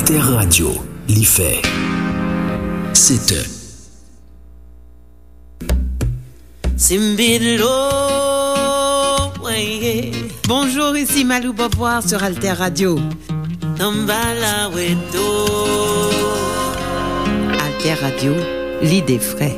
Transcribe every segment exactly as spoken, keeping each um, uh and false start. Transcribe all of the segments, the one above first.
Alter Radio, li fè sèt è. Simbidlo, weye. Bonjour, ici Malou Beauvoir sur Alter Radio. Tambala weto. Alter Radio, l'idée vraie.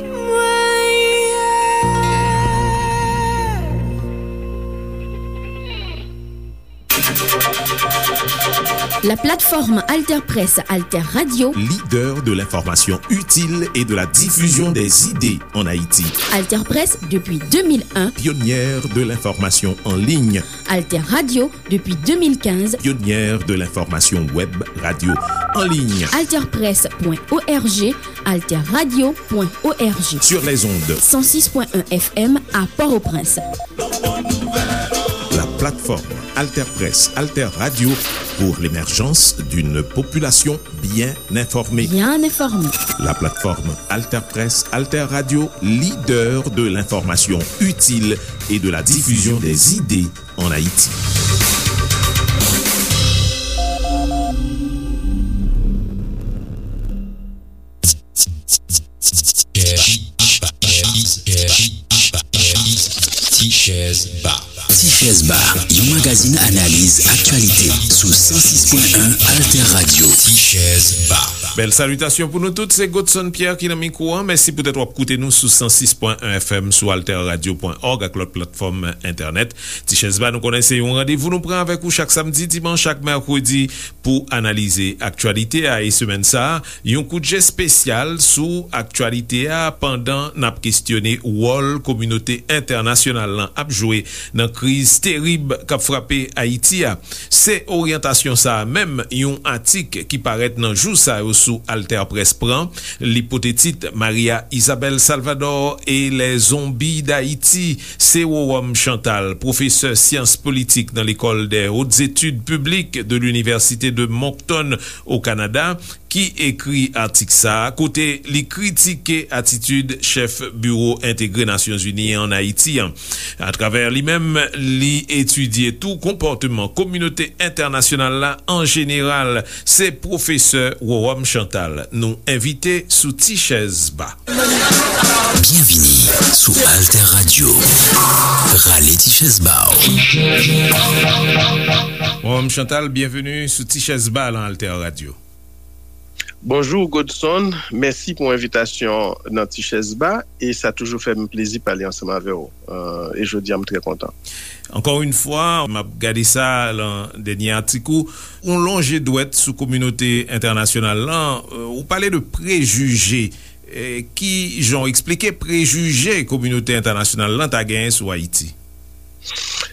La plateforme Alter Presse, Alter Radio. Leader de l'information utile et de la diffusion des idées en Haïti. Alter Presse depuis deux mille un. Pionnière de l'information en ligne. Alter Radio depuis deux mille quinze. Pionnière de l'information web radio en ligne. Alter Presse point O R G, Alter Radio point O R G. Sur les ondes. Cent six point un F M à Port-au-Prince. La plateforme Alter Presse, Alter Radio pour l'émergence d'une population bien informée. Bien informée. La plateforme Alter Presse, Alter Radio, leader de l'information utile et de la diffusion des idées en Haïti. Ti Chèz Ba. Ti Chèz Ba, yon magazin analiz aktyalite sou san sis pwen en Alter Radio. Ti Chèz Ba. Bèl salitasyon pou nou tout, se Godson Pierre ki nan mikwo an. Mèsi poutèt w ap koute nou sou san sis pwen en F M, sou alter radio pwen org ak lòt platfòm entènèt. Ti Chèz Ba, nou konnen se yon randevou nou pran avèk ou chak samdi, dimanch ak mèkredi pou analize aktyalite a. E semèn sa a, yon kout je espesyal sou aktyalite a pandan n ap kestyone wòl kominote entènasyonal lan ap jwe nan kriz terib k ap frape Ayiti a. Se oryantasyon sa a menm yon atik ki parèt nan jou sa yo sou Alter Presse pran. Li pote tit Maria Isabel Salvador et les zombies d'Haïti. Se Rowòm Chantal, pwofesè syans politik nan Lekòl des Hautes Études Publiques de l'Université de Moncton, o Kanada, ki ekri atik sa a, kote li kritike atitid chèf Biwo Entegre Nasyonzini an Ayiti an. Atravè li menm, li etidye tou konpòteman kominote entènasyonal la an jeneral. Se pwofesè Rowòm Chantal nou envite sou Ti Chèz Ba. Byenvini sou Alter Radio. Rale ti chèz ba w. Rowòm Chantal, byenveni sou Ti Chèz Ba lan Alter Radio. Bonjou Godson, mèsi pou envitasyon nan Ti Chèz Ba, e sa toujou fè m plezi pale ansanm avè w, euh, e jodi a m trè kontan. Encore une fois, m ap gade sa lan dènye atik ou, ou lonje dwèt sou kominote entènasyonal lan, euh, ou pale de prejije. Eh, ki jan w eksplike prejije kominote entènasyonal lan ta genyen sou Ayiti?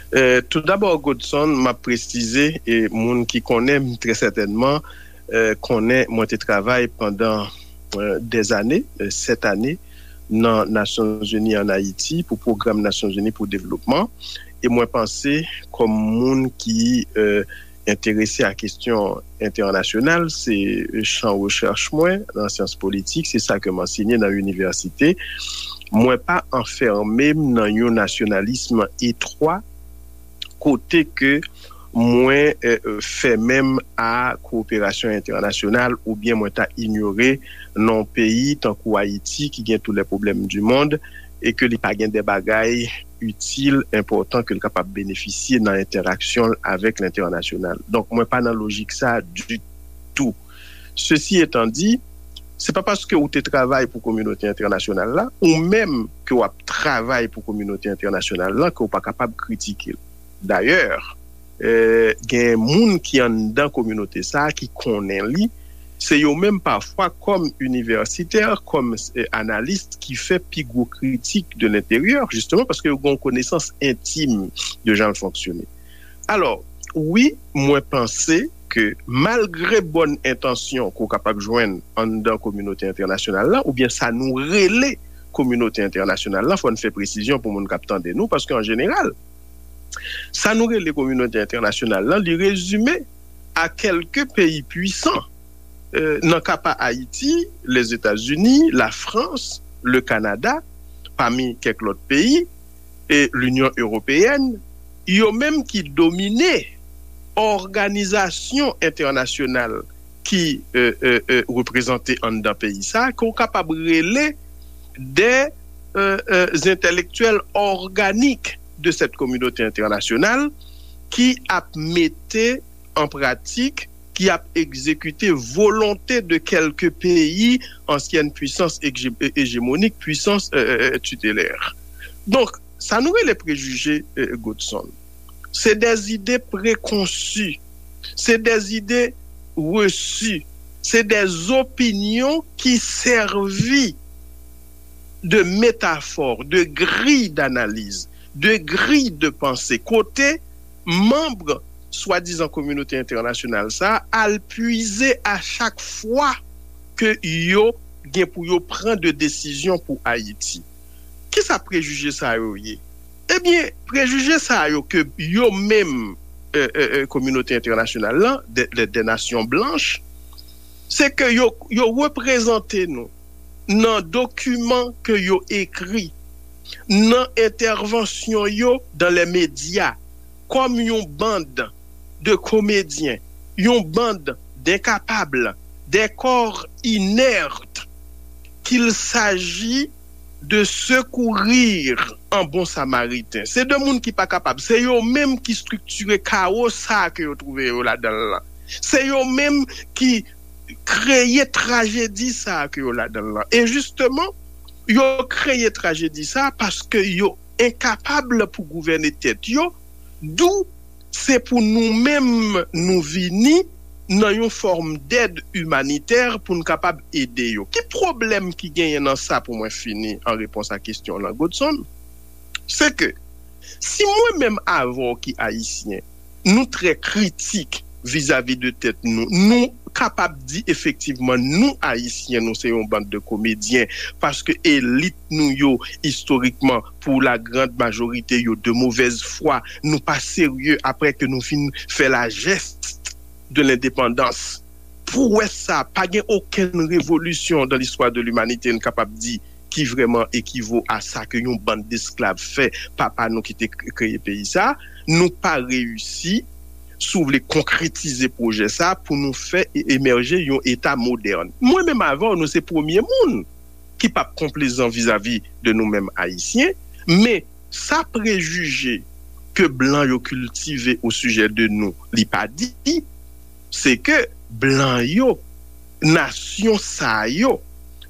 Eh, toudabò, Godson, m ap presize, e moun ki konnen m trè sètènman, eh, konnen mwen te travay pandan, eh, dèzane, eh, sèt ane, nan Nasyonzini an Ayiti pou pwogram Nasyonzini pou devlopman. E mwen panse, kòm moun ki, eh, enterese a kesyon entènasyonal, se chan rechèch mwen nan syans politik, se sa ke m ansenye nan inivèsite. Mwen pa anfèmen m nan yon nasyonalism etwa, kote ke mwen, eh, fèmen m a kowoperasyon entènasyonal oubyen mwen ta inyore non peyi tankou Ayiti ki gen tous les problèmes du monde e ke li pa gen de bagay itil, enpòtan ke l kapab benefisye nan entèraksyon l avèk lentènasyonal. Donk, mwen pa nan lojik sa a ditou. Ceci étant dit, se pa paske ou te travay pou kominote entènasyonal la, ou menm ke w ap travay pou kominote entènasyonal la, ke w pa kapab kritike l. Dayè, eh, gen moun ki anndan kominote sa a ki konnen li, se yo menm pafwa kòm inivèsitè, kòm, eh, analis ki fè pi gwo kritik de lenteryè, jisteman paske yo gen yon konesans entim de jan l fonksyone. Alò, wi, mwen panse ke malgre bòn entansyon ke w kapab jwenn anndan kominote entènasyonal la, oubyen sa nou rele kominote entènasyonal la, fò n fè presizyon pou moun k ap tande nou, paske an jeneral, sa nou rele kominote entènasyonal la, li rezime a kèlke peyi pwisan, eh, nan ka pa Ayiti, Lèzetazini, Lafrans, le Kanada, pami kèk lòt peyi, e Linyon Ewopeyèn, yo menm ki domine òganizasyon entènasyonal ki e, e, e, reprezante anndan peyi sa, ke w kapab rele de e, e, entèlektyèl òganik de cette communauté internationale ki ap mete an pratik, ki ap egzekite volonte de kèlke peyi, ansyèn pwisans ejemonik, pwisans e, e, e, titelè. Donk, sa nou rele prejije e, Godson, se de zide prekonsi, se de zide resi, se de zopinyon ki sèvi de metafor, de griy danaliz, de griy de panse, kote manm swadizan kominote entènasyonal sa a al pwize a chak fwa ke yo gen pou yo pran de desizyon pou Ayiti. Kisa prejije sa yo ye? Ebyen, prejije sa yo ke yo menm e, e, e, kominote entènasyonal lan, de, de, de nasyon blanch, se ke yo, yo reprezante nou nan dokiman ke yo ekri, nan entèvansyon yo dan lè medya, kòm yon bann de komedyen, yon bann denkapab, de kò inèt, qu'il s'agit de secourir en bon samaritain. Se de moun ki pa kapab. Se yo menm ki estriktire kawo sa ke yo twouve yo ladan l lan. Se yo menm ki kreye trajedi sa ke yo ladan l lan. E jisteman, yo kreye trajedi sa paske yo enkapab pou gouvène tèt yo, dou se pou nou menm nou vini nan yon fòm dèd imanitè pou n kapab ede yo. Ki pwoblèm ki genyen nan sa pou mwen fini an repons a kesyon w lan, Godson? Se ke si mwen menm avè w ki ayisyen, nou trè kritik vizavi de tèt nou, nou kapab di efektivman nou ayisyen, nou se yon bann de komedyen, paske elit nou yo, istorikman, pou la grande majorité, yo de mauvaise foi, nou pa serye apre ke nou fin fè la geste de l'indépendance. Pwès sa, pa gen okenn revolisyon dan listwa de limanite n kapab di ki vrèman ekivo a sa ke yon bann desklav fè papa nou ki te k- kreye peyi sa. Nou pa reyisi, si w vle, konkretize pwojè sa pou nou fè e- emèje yon eta modèn. Mwen menm avè w, nou se premye moun ki p ap konplezan vizavi de nou menm ayisyen, men sa prejije ke blan yo kiltive o sijè de nou, li pa di, se ke blan yo, nasyon sa yo,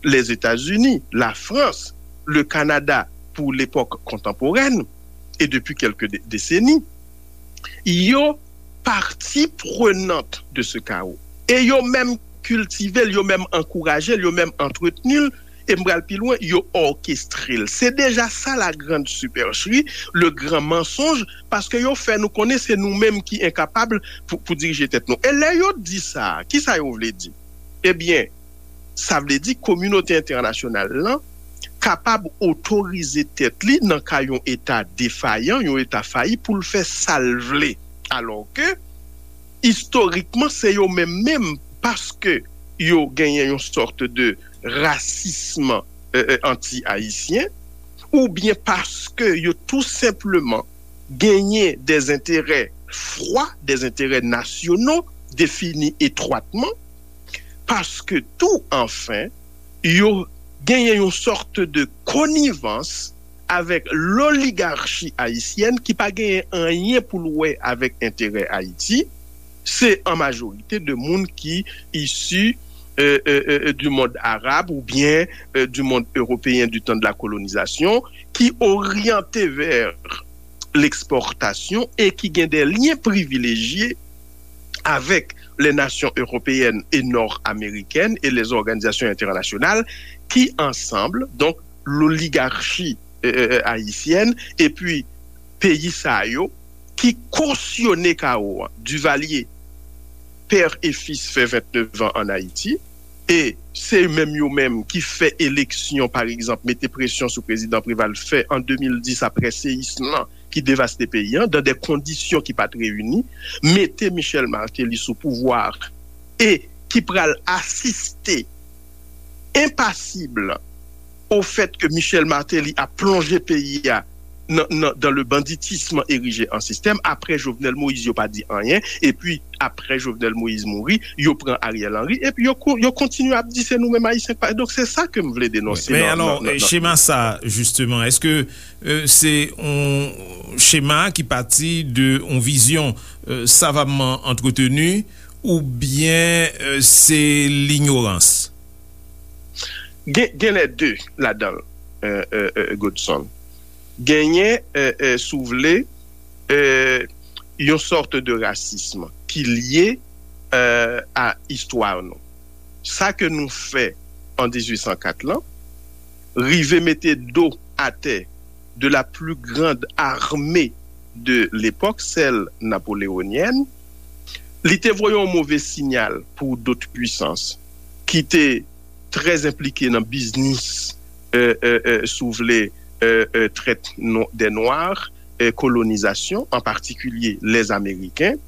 Lèzetazini, Lafrans, le Kanada pou lepòk kontanporèn, e depi kèlke de- deseni, yo partie prenante de ce chaos. E yo menm kiltive l, yo menm ankouraje l, yo menm antretni l, e m pral pi lwen, yo òkestre l. Se deja sa la grande supercherie, le grand mensonge, paske yo fè nou konnen se nou menm ki enkapab pou, pou dirije tèt nou. E lè yo di sa, kisa yo vle di? Ebyen, sa vle di kominote entènasyonal lan kapab otorize tèt li nan ka yon eta defayan, yon eta fayi pou l fè sa l vle. Alò ke, istorikman, se yo menm menm, paske yo genyen yon sòt de rasism e, e, anti-ayisyen, oubyen paske yo tou senpleman genyen des intérêts froids, des intérêts nationaux définis étroitement, paske tou, anfen, yo genyen yon sòt de konivans avèk loligachi ayisyèn ki pa genyen anyen pou l wè avèk enterè Ayiti. Se an majorite de moun ki isi euh, euh, euh, du monde arabe ou bien euh, du monde européen du temps de la colonisation, qui orientait vers l'exportation et qui gagnent des liens privilégiés avec les nations européennes et nord-américaines et les organisations internationales qui, ensemble, donc, l'oligarchie euh, euh, haïtienne, et puis pays sa yo, ki kosyone kawo a. Duvalier, père et fils, fè vennèf an ann Ayiti, e se menm yo menm ki fè eleksyon, pa egzanp, mete presyon sou prezidan Preval fè an de mil dis apre seyism lan ki devaste peyi an, dan de kondisyon ki pa t reyini, mete Michel Martelly sou pouvwa a e ki pral asiste enpasib au fait que Michel Martelly a plonje peyi a nan, nan, dans le banditisme érigé en système. Après Jovenel Moïse, yo pa di anyen. Epi, apre Jovenel Moïse mouri, yo pran Ariel Henry, epi yo, ko- yo kontinye ap di se nou menm Ayisyen k pa. Donk, se sa ke m vle denonse. Men alò, chema sa, jisteman, èske se yon chema ki pati de yon vizyon savamman antreteni, oubyen se linyorans? Gen, gen lè de ladan l, Godson. Genyen, si w vle, yon sòt de rasism ki lye a istwa nou. Sa ke nou fè an dizuit san kat lan, rive mete do atè de la plus grande armée de l'époque, celle napoléonienne, li te voye yon move sinyal pou dot pwisans ki te trè enplike nan biznis, si w vle, trèt dè nwa, kolonizasyon, an patikilye lèzameriken,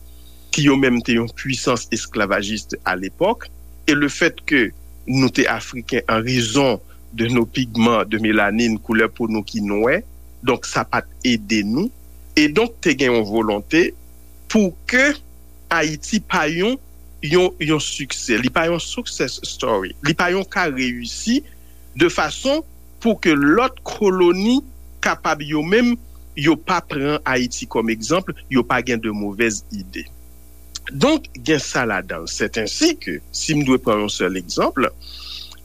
ki yo menm te yon pwisans esklavajis a lepòk, e le fèt ke nou te afriken an rezon de nos pigments, de mélanine, koulè po nou ki nwè, donk sa pa t ede nou. E donk te gen yon volonte pou ke Ayiti pa yon yon yon siksè, li pa yon success story, li pa yon ka reyisi de fason pou ke lòt koloni kapab yo menm yo pa pran Ayiti kòm egzanp, yo pa gen de movèz ide. Donk, gen sa ladan l. Sèt ensi ke, si m dwe pran yon sèl egzanp,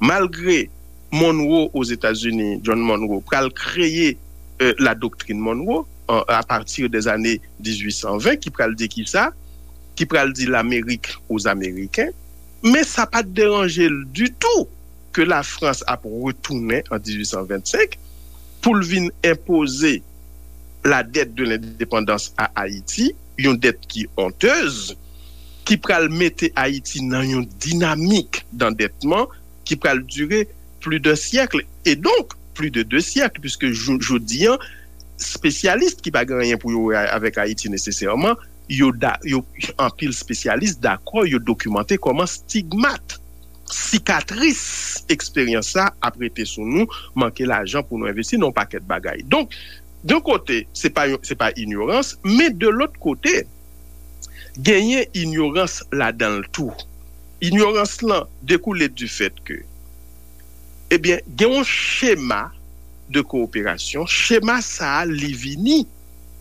malgre Monroe Ozetazini, John Monroe, pral kreye la doktrin Monroe a pati dè zane dizuit san ven, ki pral di ki sa, ki pral di Lamerik aux Américains, men sa pa t deranje l ditou ke Lafrans ap retounen an dizuit san vennsenk pou l vin enpoze la dette de l'indépendance à Haïti, yon dèt ki onteuse, ki pral mete Ayiti nan yon dinamik dandètman ki pral dire pli de syèk, e donk pli de de syèk, piske jodi an, spesyalis ki pa gen anyen pou yo wè avèk Ayiti nesesèman, yo, yo anpil spesyalis dakò, yo dokimante kòman stigmat, sikatris eksperyans sa ap rete sou nou, manke lajan pou nou envesti nan yon pakèt bagay. Donk, yon kote, se pa, se pa inyorans, men de lòt kote, genyen inyorans ladan l tou. Inyorans lan dekoule du fèt ke, ebyen, gen yon chema de kooperasyon, chema sa a, li vini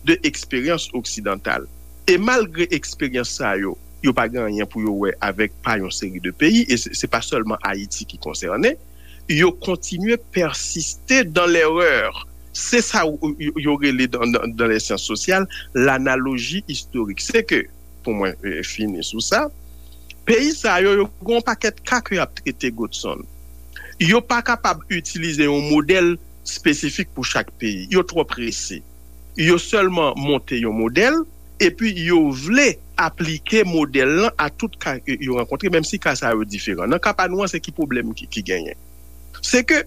de eksperyans oksidantal. E malgre eksperyans sa yo, yo pa gen anyen pou yo wè avèk pa yon seri de peyi, e se pa sèlman Ayiti ki konsène, yo kontinye pèsiste dans l'erreur. Se sa yo rele dans les sciences sociales l'analogie historique. Se ke, pou mwen fini sou sa, peyi sa yo, yo gen yon pakèt ka ke y ap trete, Godson. Yo pa kapab itilize yon modèl espesifik pou chak peyi. Yo twò prese. Yo sèlman monte yon modèl, epi yo vle aplike modèl lan a tout ka yo rankontre, menm si ka sa yo diferan. Nan ka pa nou an, se ki pwoblèm ki, ki genyen? Se ke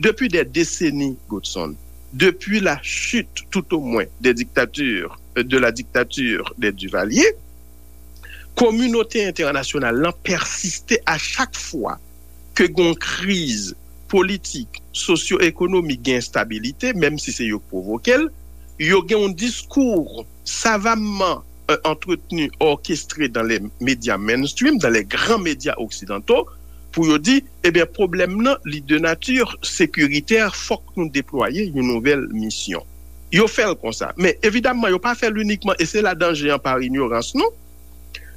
depi dè deseni, Godson, depi la chute, tout au moins, des dictatures, de la dictature des Duvalier, kominote entènasyonal lan pèsiste a chak fwa ke gen yon kriz politik, sosyo-ekonomik, gen enstabilite, menm si se yo k pwovoke l, yo gen yon diskou savamman antreteni, orkestré dans les médias mainstream, dans les grands médias occidentaux, pou yo di, ebyen, pwoblèm nan, li de nati sekiritè, fòk nou deplwaye yon nouvèl misyon. Yo fè l konsa. Men, evidamman, yo pa fè l inikman, e se la danje an pa inyorans nou.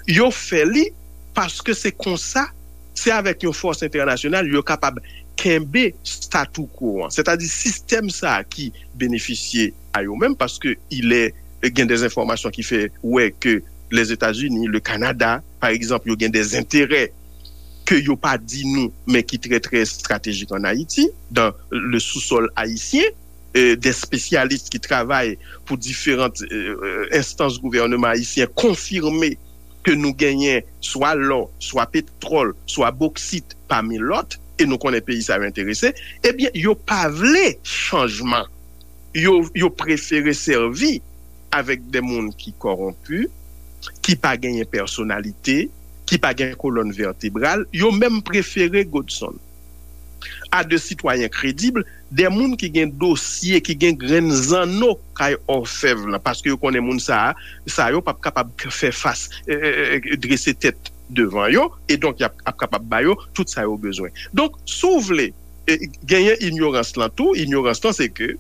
Yo fè li paske se konsa, se avèk yon fòs entènasyonal yo kapab kenbe statu quo an. Sètadi sistèm sa a ki benefisye a yo menm, paske ilè gen de enfòmasyon ki fè wè ke Lèzetazini, le Kanada, pa egzanp, yo gen de enterè ke yo pa di nou, men ki trè, trè estratejik an Ayiti, dans le sous-sol haïtien, de spesyalis ki travay pou diferan enstans gouvènman ayisyen konfime ke nou genyen swa lò, swa petwòl, swa boksit, pami lòt, e nou konnen peyi sa yo enterese, ebyen, yo pa vle chanjman. Yo, yo prefere sèvi avèk de moun ki kòwonpi, ki pa genyen pèsonalite, ki pa gen kolòn vètebral, yo menm prefere, Godson, à de citoyens crédibles, de moun ki gen dosye, ki gen grenn zanno kay òfèv lan, paske yo konnen moun sa a, sa yo p ap kapab fè fas, e, e, e, drese tèt devan yo, e donk y ap, ap kapab ba yo tout sa yo bezwen. Donk, si w vle, e, genyen inyorans lan tou, inyorans lan se ke,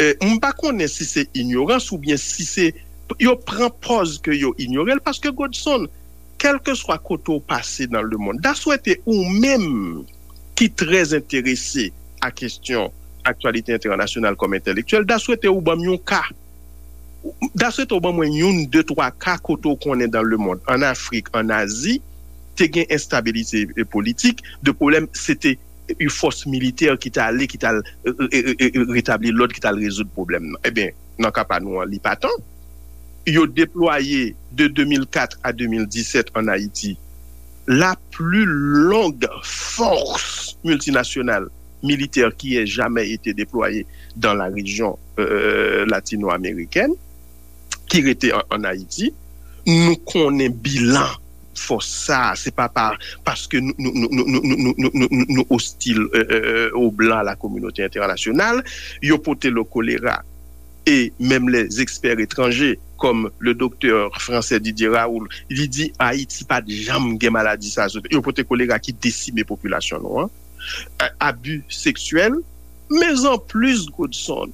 e, m pa konnen si se inyorans oubyen si se, yo pran pòz ke yo inyore l, paske Godson, kèlkeswa kote w pase nan lemonn, daswete ou menm ki trè enterese a kesyon aktyalite entènasyonal kòm entèlektyèl, daswete ou ban m yon ka, daswete ou ban mwen youn, de, twa ka kote w konnen dan lemonn, an Afrik, an Azi, te gen enstabilite, e, politik, de pwoblèm, se te yon fòs militè ki t ale, ki t al, e, e, e, e, retabli lòd, ki t al rezoud pwoblèm nan. Ebyen, nan ka pa nou an, li pa tan. Yo deplwaye de de mil kat a de mil disèt an Ayiti la plus longue force multinationale militaire qui ait jamais été déployée dans la région, euh, latino-américaine, ki rete an, an Ayiti. Nou konnen bilan fòs sa a, se pa pa, paske nou, nou, nou, nou, nou, nou, nou, nou, nou, nou ostil, euh, euh, aux Blancs, à la communauté internationale, yo pote le choléra. E menm les experts étrangers, comme le docteur français Didier Raoult, li di Ayiti pa t janm gen maladi sa a sou tè. Yo pote kolera ki desime popilasyon nou an. A-, abi seksyèl. Men anplis, Godson,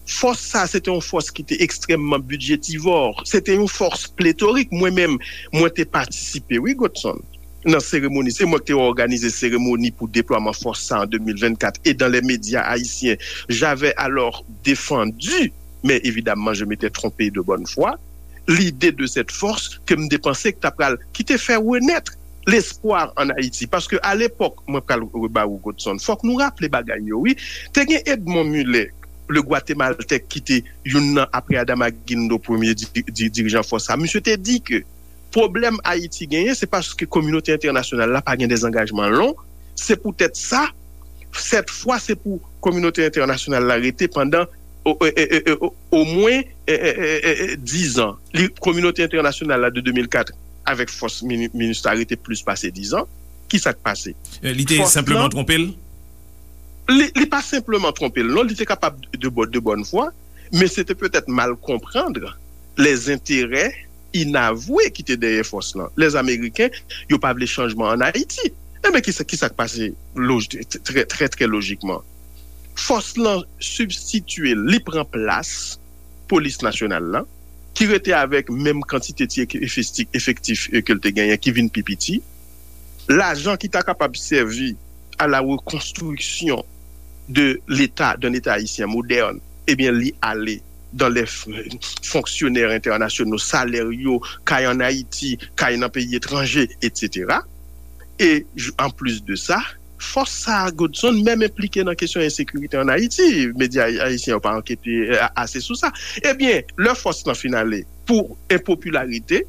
fòs sa a, se te yon fòs ki te ekstrèmman bidjetivò. Se te yon fòs pletorik. Mwen menm, mwen te patisipe, wi, Godson, nan seremoni. Se mwen ki te òganize seremoni pou deplwaman fòs sa a an de mil vennkat. Et dans les médias haïtiens, j'avais alors défendu, mais évidemment, je m'étais trompé de bonne foi, l'idée de cette force ke m te panse ki ta pral, ki te fè renèt lespwa an Ayiti. Paske a lepòk, mwen pral reba ou, Godson, fòk nou raple bagay yo, wi. Te gen Edmond Mulet, le Guatémaltèk, ki te youn nan, apre Adama Guindo, premye di-, di-, dirijan fòs sa. Misye te di ke pwoblèm Ayiti genyen, se paske kominote entènasyonal la pa gen dè zangajman long. Se poutèt sa, sèt fwa, se pou kominote entènasyonal la rete pandan o, e, e, e, o, omwen, e, e, e, e, e, diz an. Li, kominote entènasyonal la de de mil kat avèk fòs mini-, minista rete plis pase diz an. Ki sa k pase? E, li te fòs senpleman twonpe l? Li, li pa senpleman twonpe l, non. Li te kapab de, de bòn fwa, men se te petèt mal konprann lèzenterè inavwe ki te dèyè fòs lan. Lèzameriken, yo pa vle chanjman an Ayiti. Enben, ki sa, ki sa k pase loj-, trè, trè, trè lojikman? Fòs lan sibstitye l, li pran plas polis nasyonal la, ki rete avèk menm kantite ti efekti-, efektif, e, ke l te genyen, ki vin pi piti. Lajan ki ta kapab sèvi à la reconstruction de l'État, d'un État haïtien moderne, ebyen, li ale dans les f-, fonctionnaires internationaux, salè yo, kay an Ayiti, kay nan peyi etranje, et cetera. E, j-, anplis de sa, fòs sa a, Godson, menm enplike nan kesyon ensekirite an Ayiti. Medya ay-, ayisyen yo pa ankete, e, a-, ase sou sa. Ebyen, lè fòs lan fin ale, pou enpopilarite,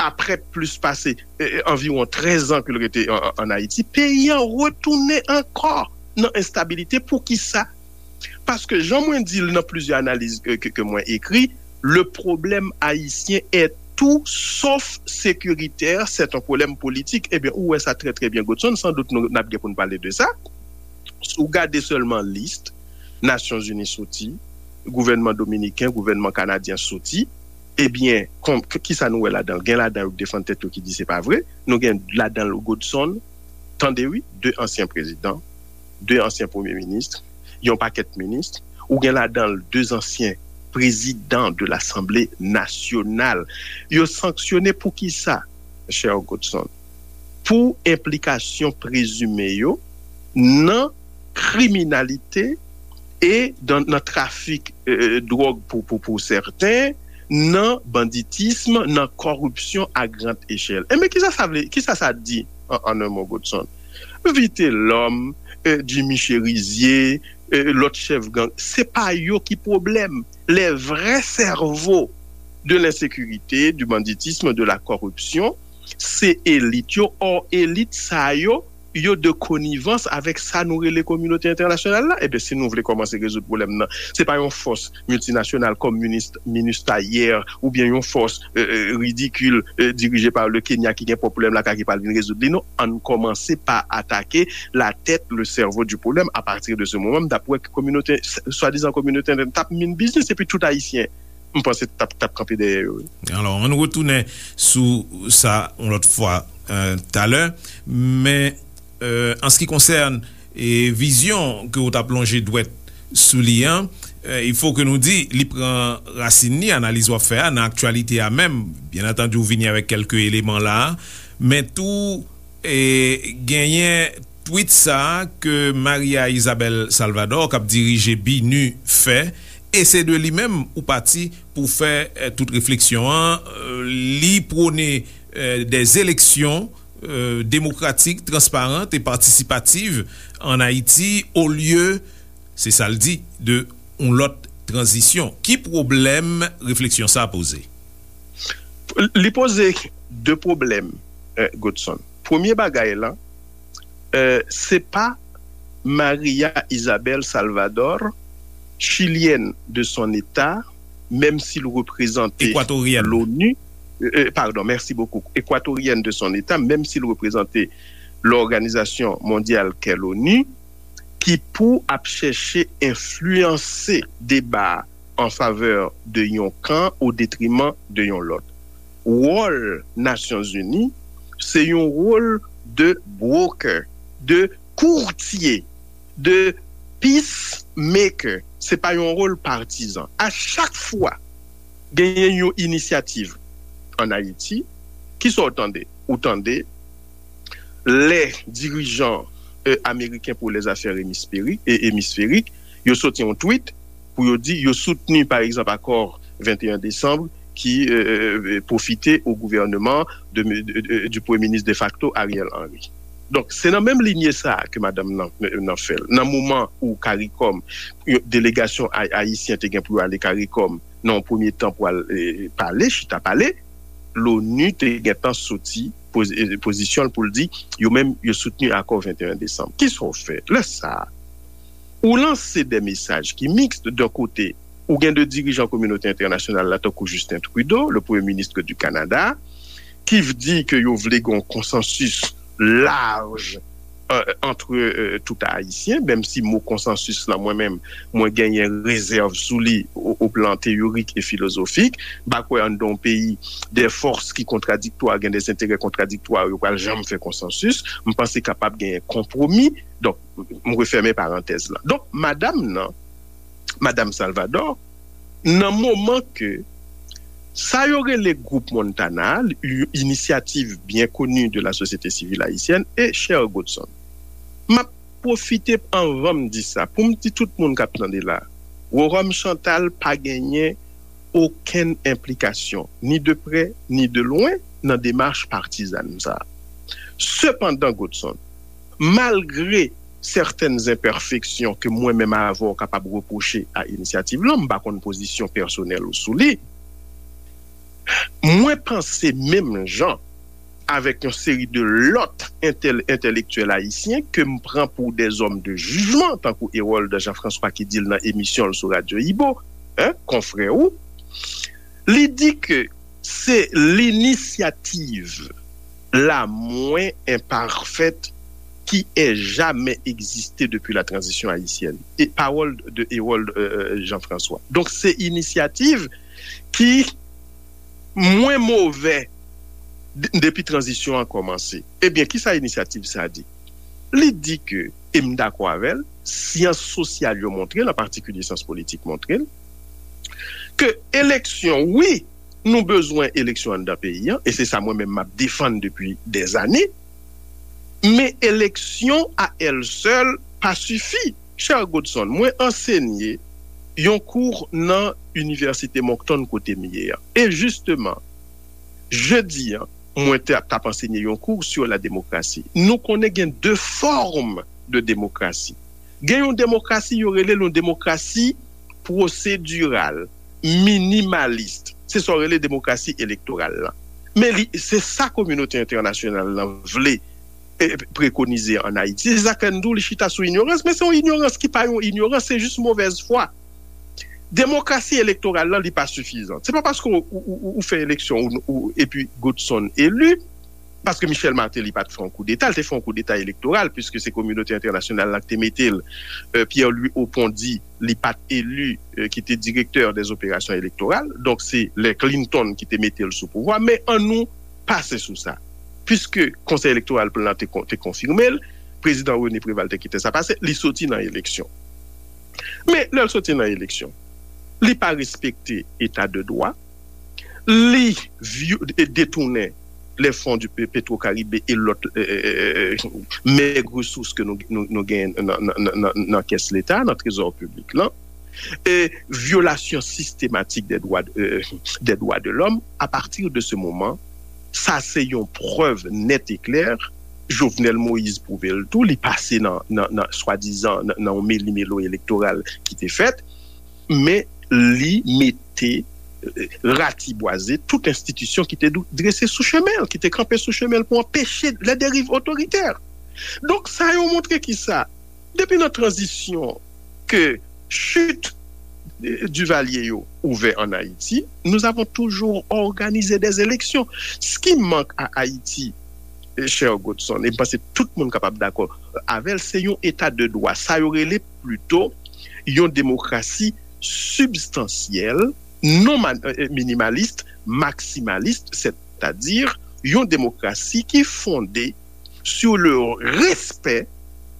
apre plis pase, e, e, anviwon trèz an ke l rete an, an, an Ayiti, peyi an retounen ankò nan enstabilite. Poukisa? Paske, jan mwen di l nan plizyè analiz ke, ke, ke mwen ekri, le problème haïtien est tout sauf sécuritaire, c'est un problème politique. Ebyen, ou wè sa trè, trè byen, Godson, san dout nou, n ap gen pou n pale de sa. Si w gade sèlman lis Nasyonzini soti, gouvènman dominiken, gouvènman kanadyen soti, ebyen, kon-, k-, kisa nou wè ladan l? Gen ladan yo k defann tèt yo ki di se pa vre. Nou gen ladan l Godson, tande wi, de ansyen prezidan, de ansyen premye minis, yon pakèt minis, ou gen ladan l de ansyen prezidan de Lasanble Nasyonal. Yo sanksyone pou kisa, chè Godson? Pou enplikasyon prezime yo nan kriminalite e dan, nan trafik, e, dwòg pou, pou, pou sèten, nan banditism, nan kòripsyon a grand echèl. Enben, kisa sa vle, kisa sa di an, an un mot, Godson? Vitelòm, e, Jimmy Chérizier, e, lòt chèf gang, se pa yo ki pwoblèm. Les vrais cerveaux de l'insécurité, du banditisme, de la corruption, se elit yo. Or, elit sa yo, yo de konivans avèk sa nou rele kominote entènasyonal la. Ebyen, si nou vle kòmanse rezoud pwoblèm nan, se pa yon fòs miltinasyonal kòm Minista yè oubyen yon fòs ridikil dirije pa le Kenya ki gen pwoblèm la ki pral vin rezoud li. Non, ann kòmanse pa atake la tèt, le sèvo di pwoblèm. Apati de se moman, m t ap wè ke kominote, swadizan kominote entènasyonal t ap min biznis epi tout Ayisyen, m panse, t ap kanpe dèyè yo. Alò, ann retounen sou sa yon lòt fwa talè, men an se ki konsène vizyon ke w t ap lonje dwèt sou li an, il faut que nou di li pran rasin li, analiz w ap fè a nan aktyalite a menm. Byen antandi, w vini avèk kèlke eleman la, men tou genyen tweet sa a ke Maria Isabel Salvador k ap dirije BINUH fè, e se de li menm ou pati pou fè tout refleksyon an. Li pwone des élections démocratiques, transparentes et participatives en Haïti, au lieu, se sa l di, de yon lòt tranzisyon. Ki pwoblèm refleksyon sa a poze? Li poze de pwoblèm, Godson. Premye bagay la, se pa Maria Isabel Salvador, chilyèn de son eta, menm si l reprezante l'ONU, pardon, merci beaucoup, équatorienne de son état, menm si l reprezante lòganizasyon mondyal kè l'ONU, ki pou ap chèche enfliyanse deba a an favè de yon kan o detriman de yon lòt. Wòl Nasyonzini, se yon wòl de broker, de kourtye, de peacemaker. Se pa yon wòl patizan. A chak fwa genyen yon inisyativ ann Ayiti, kisa w tande? Ou tande lè dirijan ameriken pou lèzafè emisferik, emisferik, yo soti yon tweet pou yo di yo soutni, pa egzanp, akò venteyen desanm ki pwofite o gouvènman di premye minis defakto Ariel Henry. Donk, se nan menm linye sa a ke madanm nan fè l. Nan moman ou CARICOM, delegasyon ayisyen te gen pou yo ale CARICOM nan yon premye tan pou al pale, chita pale, l'ONU te gentan soti pozisyon l pou l di yo menm yo soutni akò venteyen desanm. Kisa w fè lè sa a? Ou lanse de mesaj ki miks. D'un kote, ou gen de dirijan kominote entènasyonal la, tankou Justin Trudeau, le Premier ministre du Canada, ki di ke yo vle gen yon konsansis laj ant tout Ayisyen, menm si mo konsansis lan, mwen menm, mwen genyen rezèv sou li o plan teyorik e filozofik. M pa kwè anndan yon peyi de fòs ki kontradiktwa, gen de enterè kontradiktwa, yo pral janm fè konsansis. M panse kapab genyen konpwomi. Donk, m refèmen parantèz lan. Donk, madanm nan, madanm Salvador, nan moman ke sa yo rele gwoup Montana, yon inisyativ byen koni de la sosyete sivil ayisyèn, e chè Godson, m ap pwofite anvan m di sa, pou m di tout moun k ap tande la, Rworom Chantal pa genyen okenn enplikasyon, ni de prè, ni de lwen, nan demach patizàn sa a. Sepandan, Godson, malgre sètèn enpèfeksyon ke mwen menm avè w kapab repwoche a inisyativ lan, m pa konn pozisyon pèsonèl ou sou li, mwen panse menm jan avèk yon seri de lòt entèlektyèl ayisyen ke m pran pou de zòm de jijman, tankou Hérold Jean François ki di l nan emisyon l sou Radyo Ibo, konfrè ou, li di ke se linisyativ la mwen enpafèt ki è jamè egziste depi la tranzisyon ayisyèn. E pawòl de Hérold Jean François. Donk, se inisyativ ki mwen move depi tranzisyon an kòmanse. Ebyen, kisa inisyativ sa a di? Li di ke, e m dakò avè l, syans sosyal yo montre l, an patikilye syans politik montre l, ke eleksyon, wi, nou bezwen eleksyon anndan peyi an, e se sa mwen menm m ap defann depi dèzane, men eleksyon a èl sèl pa sifi. Chè Godson, mwen ansenye yon kou nan Inivèsite Moncton kote m ye a. E jisteman, jedi an, mwen t ap ansenye yon kou sur la démocratie. Nou konnen gen de fòm de demokrasi. Gen yon demokrasi, yo rele l yon demokrasi pwosediral, minimalis. Se sa yo rele demokrasi elektoral lan. Men li, se sa kominote entènasyonal lan vle. e, prekonize ann Ayiti. Se sa k fè n di w li chita sou inyorans, men se yon inyorans ki pa yon inyorans, se jis movèz fwa. Demokrasi elektoral la, li pa sifizan. Se pa paske w, w, w, w fè eleksyon ou, ou, epi Godson eli, paske Michel Martelly pa t fè yon koudeta, li te fè yon koudeta elektoral, piske se kominote entènasyonal la ki te mete l. Euh, Pierre-Louis Opondy, li pa t eli, euh, ki te direktè dè zoperasyon elektoral. Donk, se lè Clinton ki te mete l sou pouvwa. Men ann nou pase sou sa. Piske Konsèy Elektoral plan te, kon- te konfime l, prezidan René Préval te kite sa pase, li soti nan eleksyon. Men lè l soti nan eleksyon, li pa respekte eta de dwa, li vyo- e detounen les fonds du Pe- Petro-Caribe e lòt, euh, euh, euh, mèg resous ke nou, nou, nou genyen nan, nan, nan, nan, nan kès Leta, nan trezò piblik lan, e vyolasyon sistematik des droits, euh, des droits de l'homme. À partir de ce moment, sa se yon prèv nèt e klè. Jovenel Moïse pwouve l tou, li pase nan, nan, nan swadizan nan, nan yon meli-melo elektoral ki te fèt, men li mete, euh, ratibwaze tout enstitisyon ki te dou- drese sou chemen l, ki te kanpe sou chemen l pou anpeche les dérives autoritaires. Donk, sa yo montre ki sa? Depi nan tranzisyon ke chit, euh, Duvalier yo ouvè ann Ayiti, nous avons toujours organisé des élections. Ce qui manque à Haïti, euh, cher Godson, e m panse tout moun kapab dakò avè l, se yon eta de dwa. Sa yo rele plito yon demokrasi sibstansyèl, non ma- euh, minimalis, maksimalis, sètadi yon demokrasi ki fonde sur le respect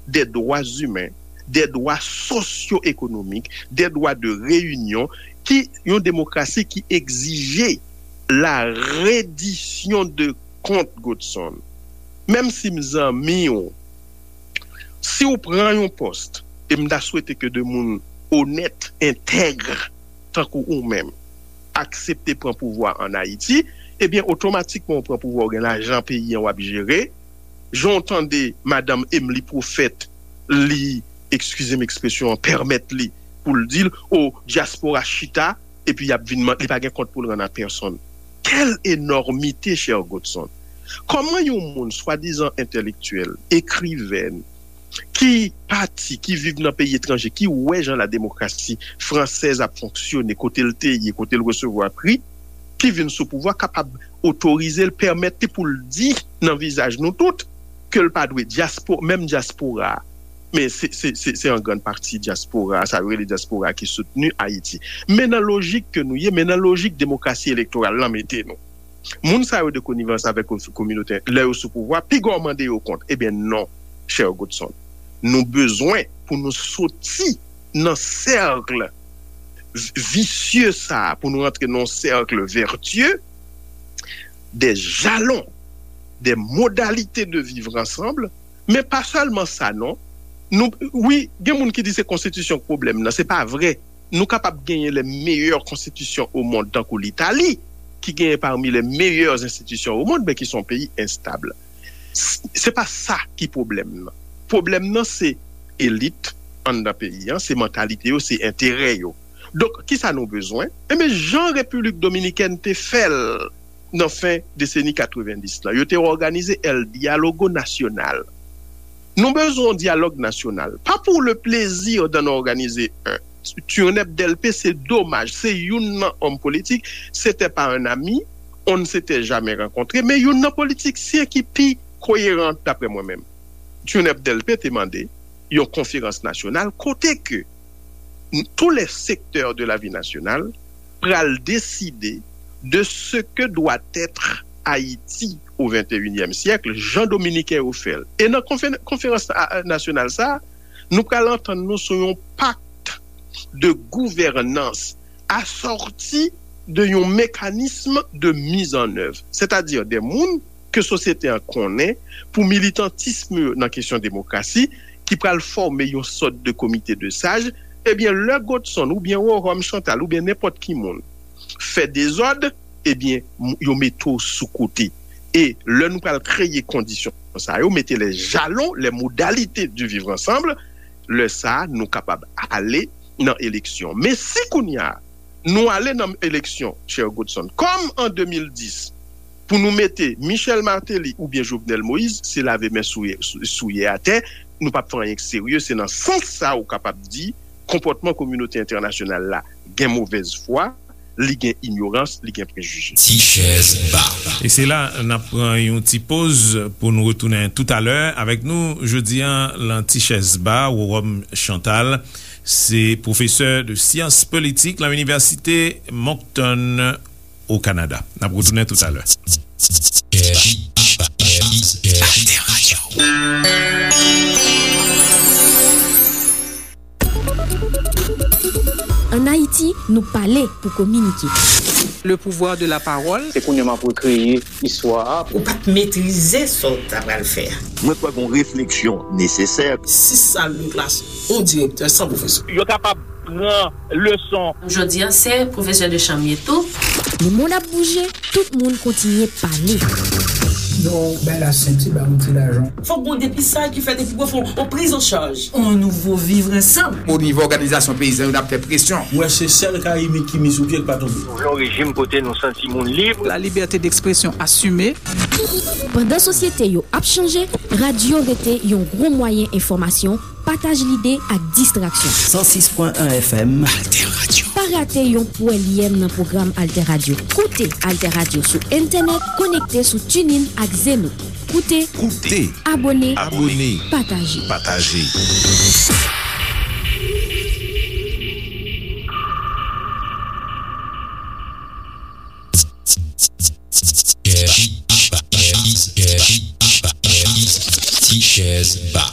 des droits humains, des droits socio-économiques, des droits de réunion, ki yon demokrasi ki egzije la redisyon de kont, Godson. Menm si m zanmi w, si w pran yon pòs, e m ta swete ke de moun onèt, entèg, tankou ou menm, aksepte pran pouvwa ann Ayiti, ebyen, otomatikman w pran pouvwa, w gen lajan peyi an w ap jere. Jan w tande madanm Emily Prophète, li, eskize m ekspresyon an, pèmèt li pou l di l, o, dyaspora chita, epi y ap vin man- li pa gen kont pou l rann a pèsonn. Quelle énormité, cher Godson! Kòman yon moun swadizan entèlektyèl, ekriven, ki pati, ki viv nan peyi etranje, ki wè jan la demokrasi fransèz ap fonksyone, kote l te ye, kote l resevwa pri, ki vin sou pouvwa, kapab otorize l, pèmèt li pou l di nan vizaj nou tout ke l pa dwe dyaspo, menm dyaspora a, men se, se, se, se an grann pati dyaspora a, sa yo rele dyaspora a ki soutni Ayiti. Men nan lojik ke nou ye, men nan lojik demokrasi elektoral lan mete nou. Moun sa yo de konivans avèk ko- kominote, lè yo sou pouvwa, piga w mande yo kont. Ebyen non, chè Godson. Nou bezwen pou nou soti nan sèk vi- visye sa a, pou nou rantre nan yon sèk vètyè, des jalons, des modalités de vivre ensemble, men pa sèlman sa non. Nou, wi, gen moun ki di se konstitisyon k pwoblèm nan, se pa vre. Nou kapab genyen les meilleures constitutions au monde, tankou Litali, ki genyen parmi les meilleures institutions au monde, men ki se yon peyi enstab. S- Se pa sa ki pwoblèm nan. Pwoblèm nan se elit anndan peyi an, se mantalite yo, se enterè yo. Donk, kisa nou bezwen? Enben, jan Repiblik Dominikèn te fè l nan fen deseni katrevenndis lan, yo te òganize El Diálogo Nacional. Nou bezwen yon dyalòg nasyonal. Pas pour le plaisir d'en organiser un. Turnep Delpe, se domaj, se youn nan òm politik, c'était pas un ami, on ne s'était jamais rencontré, men youn nan politiksyen ki pi koyeran, daprè mwen menm. Turnep Delpe te mande yon konferans nasyonal kote ke tous les secteurs de la vie nationale pral deside de ce que doit être Haïti au vingt et unième siècle, jan Dominiken yo fè l. E nan konfe- konferans a- a- nasyonal sa a, nou pral antann nou sou yon pakt de gouvènans asòti de yon mekanism de mizannèv, sètadi de moun ke sosyete an konnen pou militantism yo nan kesyon demokrasi, ki pral fòme yon sòt de komite de saj, ebyen, lè Godson oubyen Rohom Chantal oubyen nenpòt ki moun fè dezòd, ebyen, m- yo mete w sou kote. E lè nou pral kreye kondisyon sa yo, mete les jalons, les modalités du vivre ensemble, lè sa a, nou kapab ale nan eleksyon. Men si kounye a, nou ale nan eleksyon, chè Godson, kòm an de mil dis, Pou nou mete Michel Martelly oubyen Jovenel Moïse, se lave men souye, sou- souye atè, nou p ap fè anyen k serye. Se nan sans sa ou kapab di konpòtman kominote entènasyonal la gen movèz fwa, li gen inyorans, li gen prejije. Ti chèz ba. E se la n ap pran yon ti poz pou nou retounen toutalè. Avèk nou jodi a lan Ti chèz ba, Roròm Chantal, se pwofesè de syans politik lan Inivèsite Moncton o Kanada. N ap retounen toutalè. Ann Ayiti, nou pale pou kominike. Le pouvoir de la parole. Se kounye a m ap rekreye istwa a. Ou pa t metrize sa w ta pral fè a. Mwen kwè gen yon refleksyon nesesè. Sis sal de klas, yon direktè san pwofesè. Yo kapab pran leson. Jodi a, se pwofesè de chanm ye tou. Lemonn ap bouje, tout moun kontinye pale. Yo bay la senti ba yon ti lajan. Fòk gon depistaj ki fèt epi pou fè yon priz an chaj. On nouvo vivre ansanm. O nivo òganizasyon peyizan yo n ap fè presyon. Mwen se sèl Karibik ki miz sou pye k pa tonbe. Nou vle yon rejim kote nou santi moun lib. La liberté d'expression assumée. Pandan sosyete yo ap chanje, radyo rete yon gwo mwayen enfòmasyon, pataj lide ak distraksyon. San sis pwen en F M. Alter Radio. Pa rate yon pwèlyèm nan pwogram Alter Radio. Koute Alter Radio sou entènèt, konekte sou TuneIn ak Zeno. Koute, Koute, abòne, abòne, pataje. Pataje. Ti chèz ba.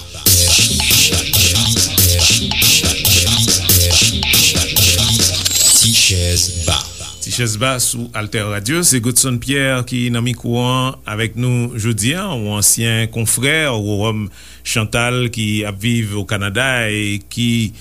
Ti chèz ba. Ti chèz ba sou Alter Radio, se Godson Pierre ki nan mikwo an avèk nou jodi a, yon ansyen konfrè Roròm Chantal ki ap viv o Kanada e ki,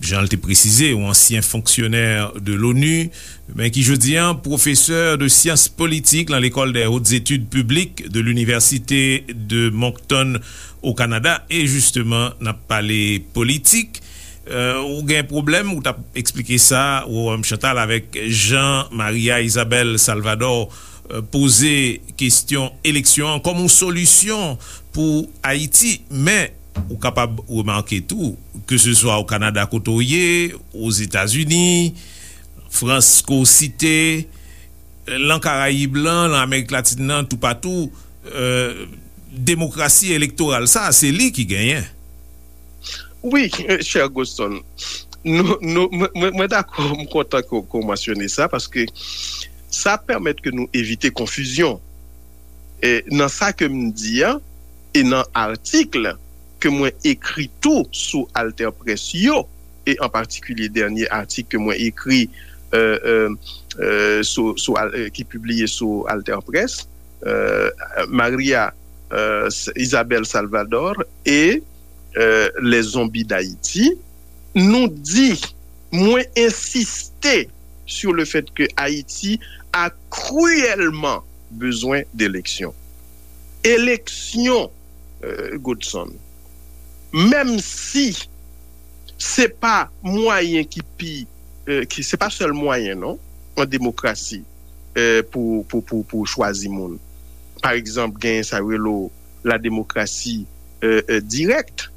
jan l te presize, yon ansyen fonksyonè de l'ONU, men ki jodi a pwofesè de syans politik lan Lekòl des Hautes Études Publiques de l'Université de Moncton o Kanada. E jisteman, n ap pale politik. Euh, ou gen pwoblèm, ou t ap eksplike sa, Roròm Chantal, avèk jan Maria Isabel Salvador euh, poze kesyon eleksyon an kòm yon solisyon pou Ayiti. Men, ou kapab remake tou, ke se swa o Kanada kote w ye, Ozetazini, Frans ke w site, lan Karayib lan, lan Amerik Latin nan, toupatou, euh, demokrasi elektoral sa, se li ki genyen. Wi, chè Godson, nou, nou, mwen, mwen dakò, m kontan ke w mansyone sa, paske sa pèmèt ke nou evite konfizyon e, nan sa ke m di a, e nan atik ke mwen ekri tou sou AlterPresse yo, e an patikilye dènye atik ke mwen ekri euh, euh, euh, sou, sou, euh, ki pibliye sou AlterPresse, euh, Maria euh, Isabel Salvador et euh, les zombies d'Haïti, nou di, mwen ensiste sur le fait que Haïti a cruellement besoin d'élections. Eleksyon, euh, Godson, menm si se pa mwayen ki pi, euh, ki, se pa sèl mwayen non, an demokrasi, euh, pou, pou, pou, pou chwazi moun. Pa egzanp, genyen sa yo rele la demokrasi euh, euh, dirèk,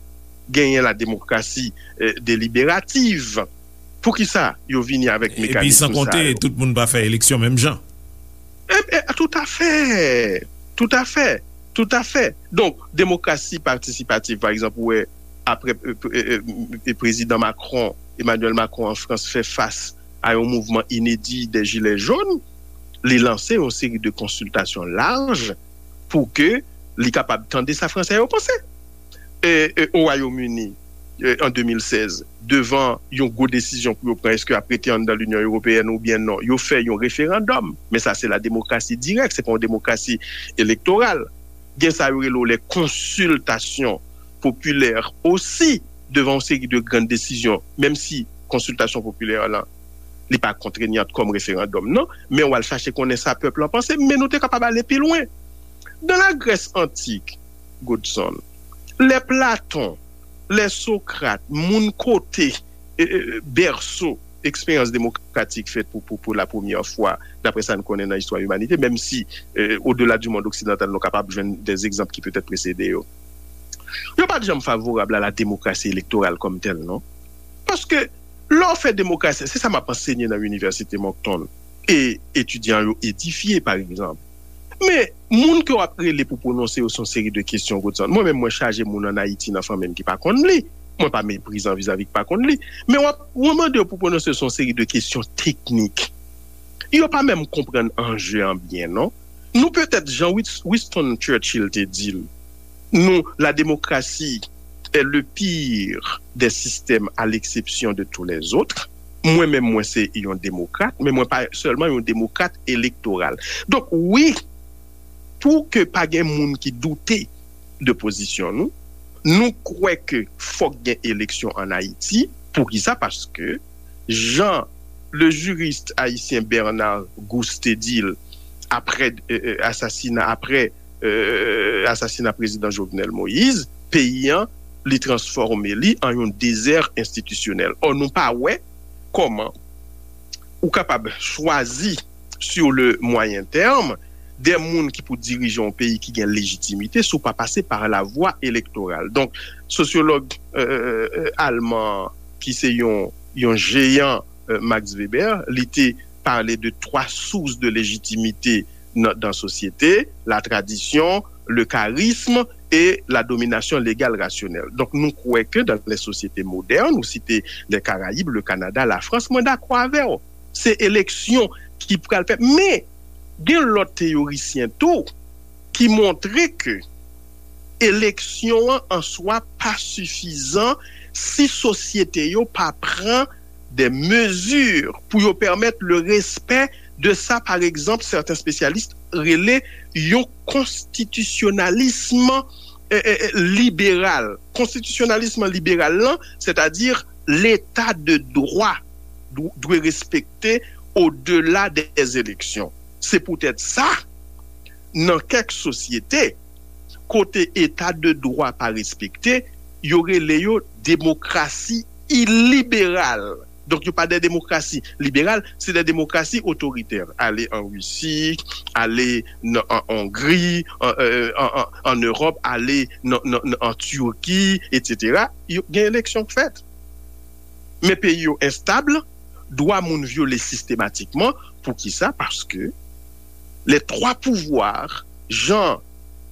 genyen la demokrasi euh, deliberativ. Poukisa yo vini avèk mekanism sa yo? Epi san konte, tout moun pa fè eleksyon menm jan. E, e, toutafè, toutafè, toutafè. Donk, demokrasi patisipativ, pa egzanp, ou wè, apre e, e, e, e, prezidan Macron, Emmanuel Macron an Frans fè fas a yon mouvman inedi de jilè jòn, li lanse yon seri de konsiltasyon laj pou ke li kapab tande sa Fransè yo panse. E, e, o Wayòm Ini, e, an de mil sèz, devan yon gwo desizyon pou yo pran, èske y ap rete anndan Linyon Ewopeyèn oubyen non, yo fè yon referandòm. Men sa se la demokrasi dirèk, se pa yon demokrasi elektoral. Gen sa yo rele w les consultations populaires osi, devan yon seri de grann desizyon, menm si konsiltasyon popilè lan, li pa kontreyant kòm referandòm, non, men w al chache konnen sa pèp lan panse, men nou te kapab ale pi lwen. Dans la Grèce antique, Godson, lè Platon, lè Sokrat, moun kote, e, e, bèso, eksperyans demokratik fèt pou, pou, pou la premyè fwa, daprè sa n konnen nan istwa imanite, menm si, euh, odela di mond oksidantal, nou kapab jwenn de egzanp ki petèt presede yo. Yo pa t janm favorab a la demokrasi elektoral kòm tèl, non. Paske, lè w fè demokrasi, se sa m ap ansenye nan Inivèsite Moncton, e etidyan yo edifye, pa egzanp. Men, moun ke w ap rele pou pwononse yo se yon seri de kesyon, Godson. Mwen menm, mwen chaje moun ann Ayiti nan fanmi m ki pa konn li. Mwen pa meprizan vizavi ki pa konn li. Men w ap, w ap mande yo pou pwononse yo se yon seri de kesyon teknik. Yo pa menm konprann anje an byen, non. Nou petèt, jan Wis- Winston Churchill te di l, nous, la démocratie est le pire des systèmes à l'exception de tous les autres. Mwen menm, mwen se yon demokrat, men mwen pa sèlman yon demokrat elektoral. Donk, wi, pou ke pa gen moun ki doute de pozisyon nou, nou kwè ke fòk gen eleksyon ann Ayiti. Poukisa? Paske, jan le juriste haïtien Bernard Gousse te di l, apre, euh, euh, asasina, apre, euh, asasina prezidan Jovenel Moïse, peyi an, li transfòme li an yon dezè enstitisyonèl. Ò, nou pa wè kòman ou kapab chwazi sur le moyen terme de moun ki pou dirije yon peyi ki gen lejitimite si w pa pase pa la vwa elektoral. Donk, sosyològ, euh, euh, alman ki se yon, yon jeyan, euh, Max Weber, li te pale de twa sous de lejitimite nan, dan sosyete, la tradition, le charisme et la domination légale rationnelle. Donk, nou kwè ke dans les sociétés modernes, ou site les Caraïbes, le Canada, la France, mwen dakò avè w. Se eleksyon ki pral fèt. Men, gen lòt teyorisyen tou ki montre ke eleksyon an an swa pa sifizan si sosyete yo pa pran de mezi pou yo pèmèt le respè de sa, par egzanp, sèten espesyalis rele yon konstitisyonalism, eh, eh, eh, liberal. Konstitisyonalism liberal lan, sètadi leta de dwa dwe respekte odela dè eleksyon. Se poutèt sa, nan kèk sosyete, kote eta de dwa pa respekte, yo rele yo demokrasi iliberal. Donk, yo pa de demokrasi liberal, se de demokrasi otoritè. Ale an Risi, ale nan, an Ongri, an, euh, an, an, an Ewòp, ale nan, nan, nan, an Tiki, etsetera. Yo, gen eleksyon k fèt. Men peyi yo enstab, dwa moun vyole sistematikman. Poukisa? Paske les trois pouvoirs, jan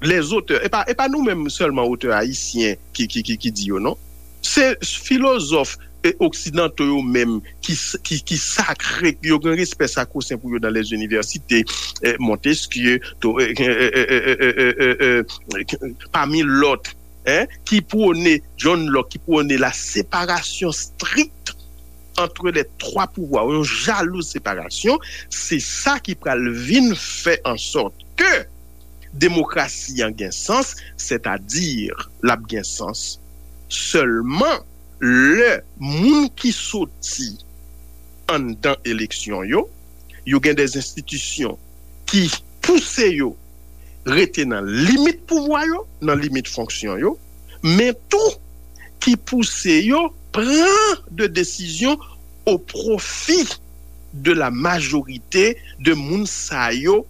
les auteurs, e pa, e pa nou menm sèlman otè ayisyen ki, ki, ki, ki di yo, non. Se filozòf, e, oksidanto yo menm ki, ki, ki sakre, yo gen respè sakrosen pou yo dans les universités, e, Montesquieu, to, e, e, pami lòt, en, ki pwone, John Locke, ki pwone la séparation stricte entre les trois pouvoirs, yon jalouz separasyon, se sa ki pral vin fè an sòt ke demokrasi an gen sans, sètadi l ap gen sans sèlman lè moun ki soti anndan eleksyon yo, yo gen de enstitisyon ki pouse yo rete nan limit pouvwa yo, nan limit fonksyon yo, men tou ki pouse yo pran de desizyon o pwofi de la majorite de moun sa yo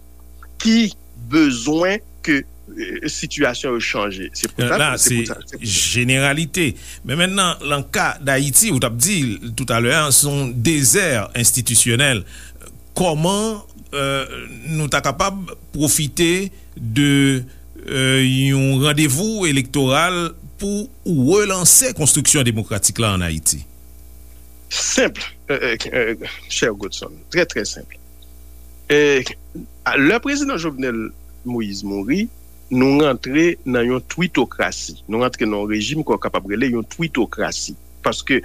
ki bezwen ke, euh, sitiyasyon yo chanje. Se pou sa, la, se pou sa, se pou sa. Jeneralite. Men mentnan, nan ka Dayiti, ou t ap di toutalè a, se yon dezè enstitisyonèl. Kòman, euh, nou ta kapab pwofite de, euh, yon randevou elektoral pou relanse konstriksyon demokratik la ann Ayiti? Senp, euh, euh, euh, chè Godson, trè, trè senp. E, lè prezidan Jovenel Moïse mouri, nou rantre nan yon twitokrasi. Nou rantre nan yon rejim ke w kapab rele yon twitokrasi. Paske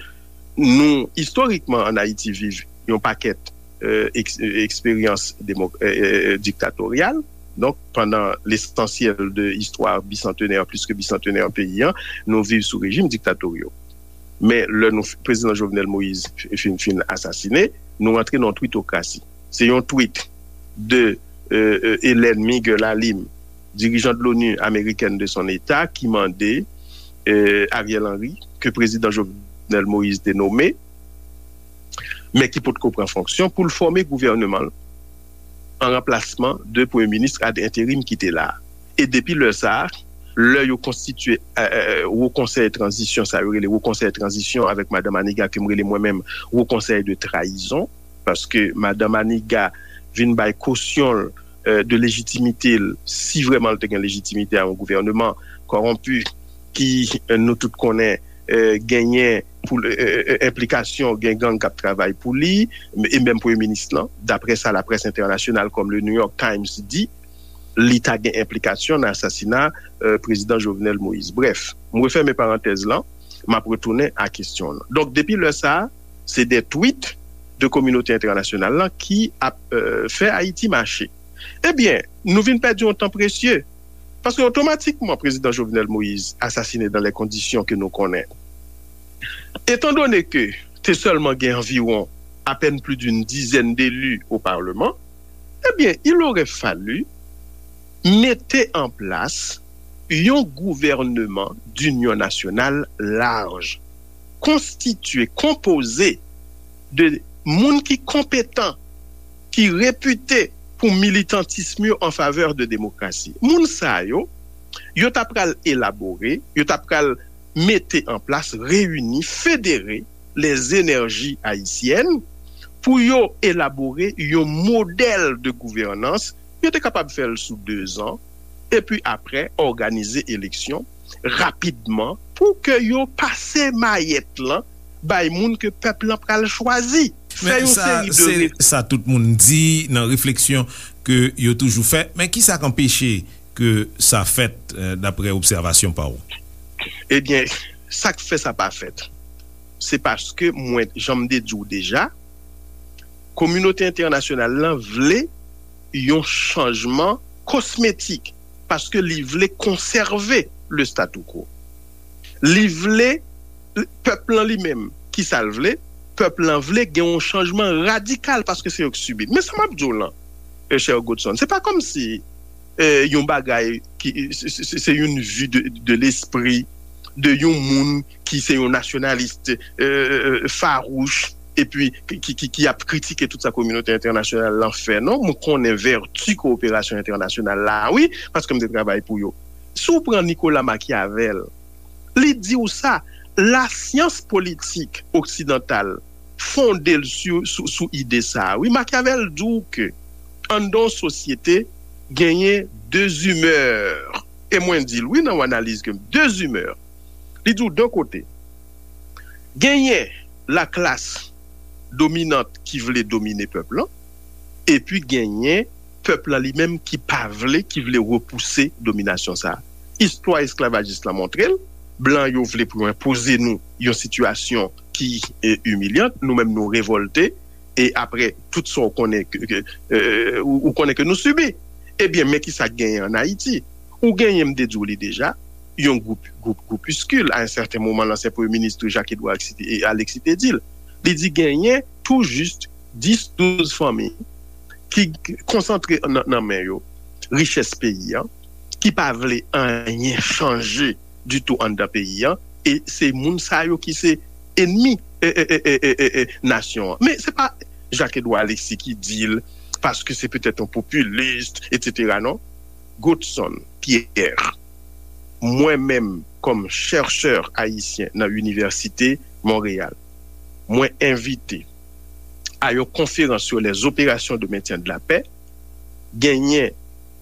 nou, istorikman, ann Ayiti, viv yon pakèt, euh, eks-, euh, eksperyans demo-, euh, euh, diktatoryal. Donk, pandan lesansyèl de istwa bisantenè, plis ke bisantenè peyi an, nou viv sou rejim diktatoryo. Men lè nou, prezidan Jovenel Moïse fin, fin asasine, nou rantre nan yon twitokrasi. Se yon tweet de, euh, euh, Hélène Miguel Alim, dirijan de l'ONU américaine de son état, ki mande, euh, Ariel Henry, ke prezidan Jovenel Moïse te nome, men ki potko pran fonksyon, pou l fòme gouvènman l an ranplasman de premye minis ad enterim ki te la a. E depi lè sa a, lè yo konstitye Wo Konsèy Tranzisyon, sa yo rele Wo Konsèy Tranzisyon avèk Madan Maniga, ke m rele mwen menm Wo Konsèy de Trayizon, paske Madan Maniga vin bay kosyon l de lejitimite l, si vrèman l te gen lejitimite a yon gouvènman kòwonpi ki, nou tout konnen, genyen pou enplikasyon, gen gang k ap travay pou li, e menm premye minis lan, daprè sa laprès entènasyonal kòm le New York Times di, li ta gen enplikasyon nan asasina prezidan Jovenel Moïse. Brèf, m refèmen parantèz lan, m ap retounen a kesyon w lan. Donk, depi lè sa a, se de twit de kominote entènasyonal lan ki ap fè Ayiti mache. Ebyen, nou vin pèdi yon tan presye. Paske otomatikman, prezidan Jovenel Moïse asasine dan lè kondisyon ke nou konnen. Etandone ke te sèlman gen anviwon apèn pli d'une dizaine d'élus au Parlement, ebyen, il aurait fallu mete an plas yon gouvènman d'inyon nasyonal laj, konstitye, konpoze de moun ki konpetan, ki repite pou militantism yo an favè de demokrasi. Moun sa yo, yo ta pral elabore, yo ta pral mete an plas, reyini, federe les énergies haïtiennes pou yo elabore yon modèl de gouvènans. Yo te kapab fè l sou dezan, epi apre òganize eleksyon rapidman pou ke yo pase mayèt lan bay moun ke pèp lan pral chwazi. Fè yon seri de... Se sa tout moun di nan refleksyon ke yo toujou fè. Men ki sa k anpeche ke sa fèt, daprè obsèvasyon pa w? Ebyen, sa k fè sa pa fèt, se paske mwen, jan m te di w deja, kominote entènasyonal lan vle yon chanjman kosmetik, paske li vle konsève le statu quo. Li vle, pèp lan li menm, ki sa l vle? Pèp lan vle gen yon chanjman radikal, paske se yo k sibi l. Men sa m ap di w lan, chè Godson, se pa kòmsi yon bagay ki se yon vi de lespri de yon moun ki se yon nasyonalis fawouch, epi ki ap kritike tout sa kominote entènasyonal lan fè. Non, mwen konnen vèti kowoperasyon entènasyonal la, wi, paske m te travay pou yo. Si w pran Nicolas Machiavel, li di w sa, lasyans politik oksidantal fonde l sou ide sa a. Wi, Machiavel di w ke anndan yon sosyete genyen de zimè. E mwen di l, wi, nan yon analiz ke m, de zimè. Li di w de kote. Genyen laklas dominant ki vle domine pèp lan, epi genyen pèp lan li menm ki pa vle, ki vle repouse dominasyon sa a. Istwa esklavajis lan montre l, blan yo vle pou yo enpoze nou yon sitiyasyon ki imilyan, nou menm nou revòlte, e apre tout sa w konnen ke, ou konnen ke nou sibi. Ebyen, men ki sa k genyen ann Ayiti. Ou genyen, m te di w li deja, yon gwoup, gwoup, gwoupiskil, a yon sèten moman, lansyen premye minis Jacques Edouard Alexis te di l. Li di genyen tou jis dis, douz fanmi ki konsantre nan men yo richès peyi a, ki pa vle anyen chanje ditou anndan peyi a, e se moun sa yo ki se enmi nasyon an. Men se pa Jacques Edouard Alexis ki di l, paske se petèt yon popilis, etsetera, non. Godson Pierre, mwen menm, kòm chèchè ayisyen nan Inivèsite Monreyal, mwen envite a yon konferans sur les opérations de maintien de la paix, genyen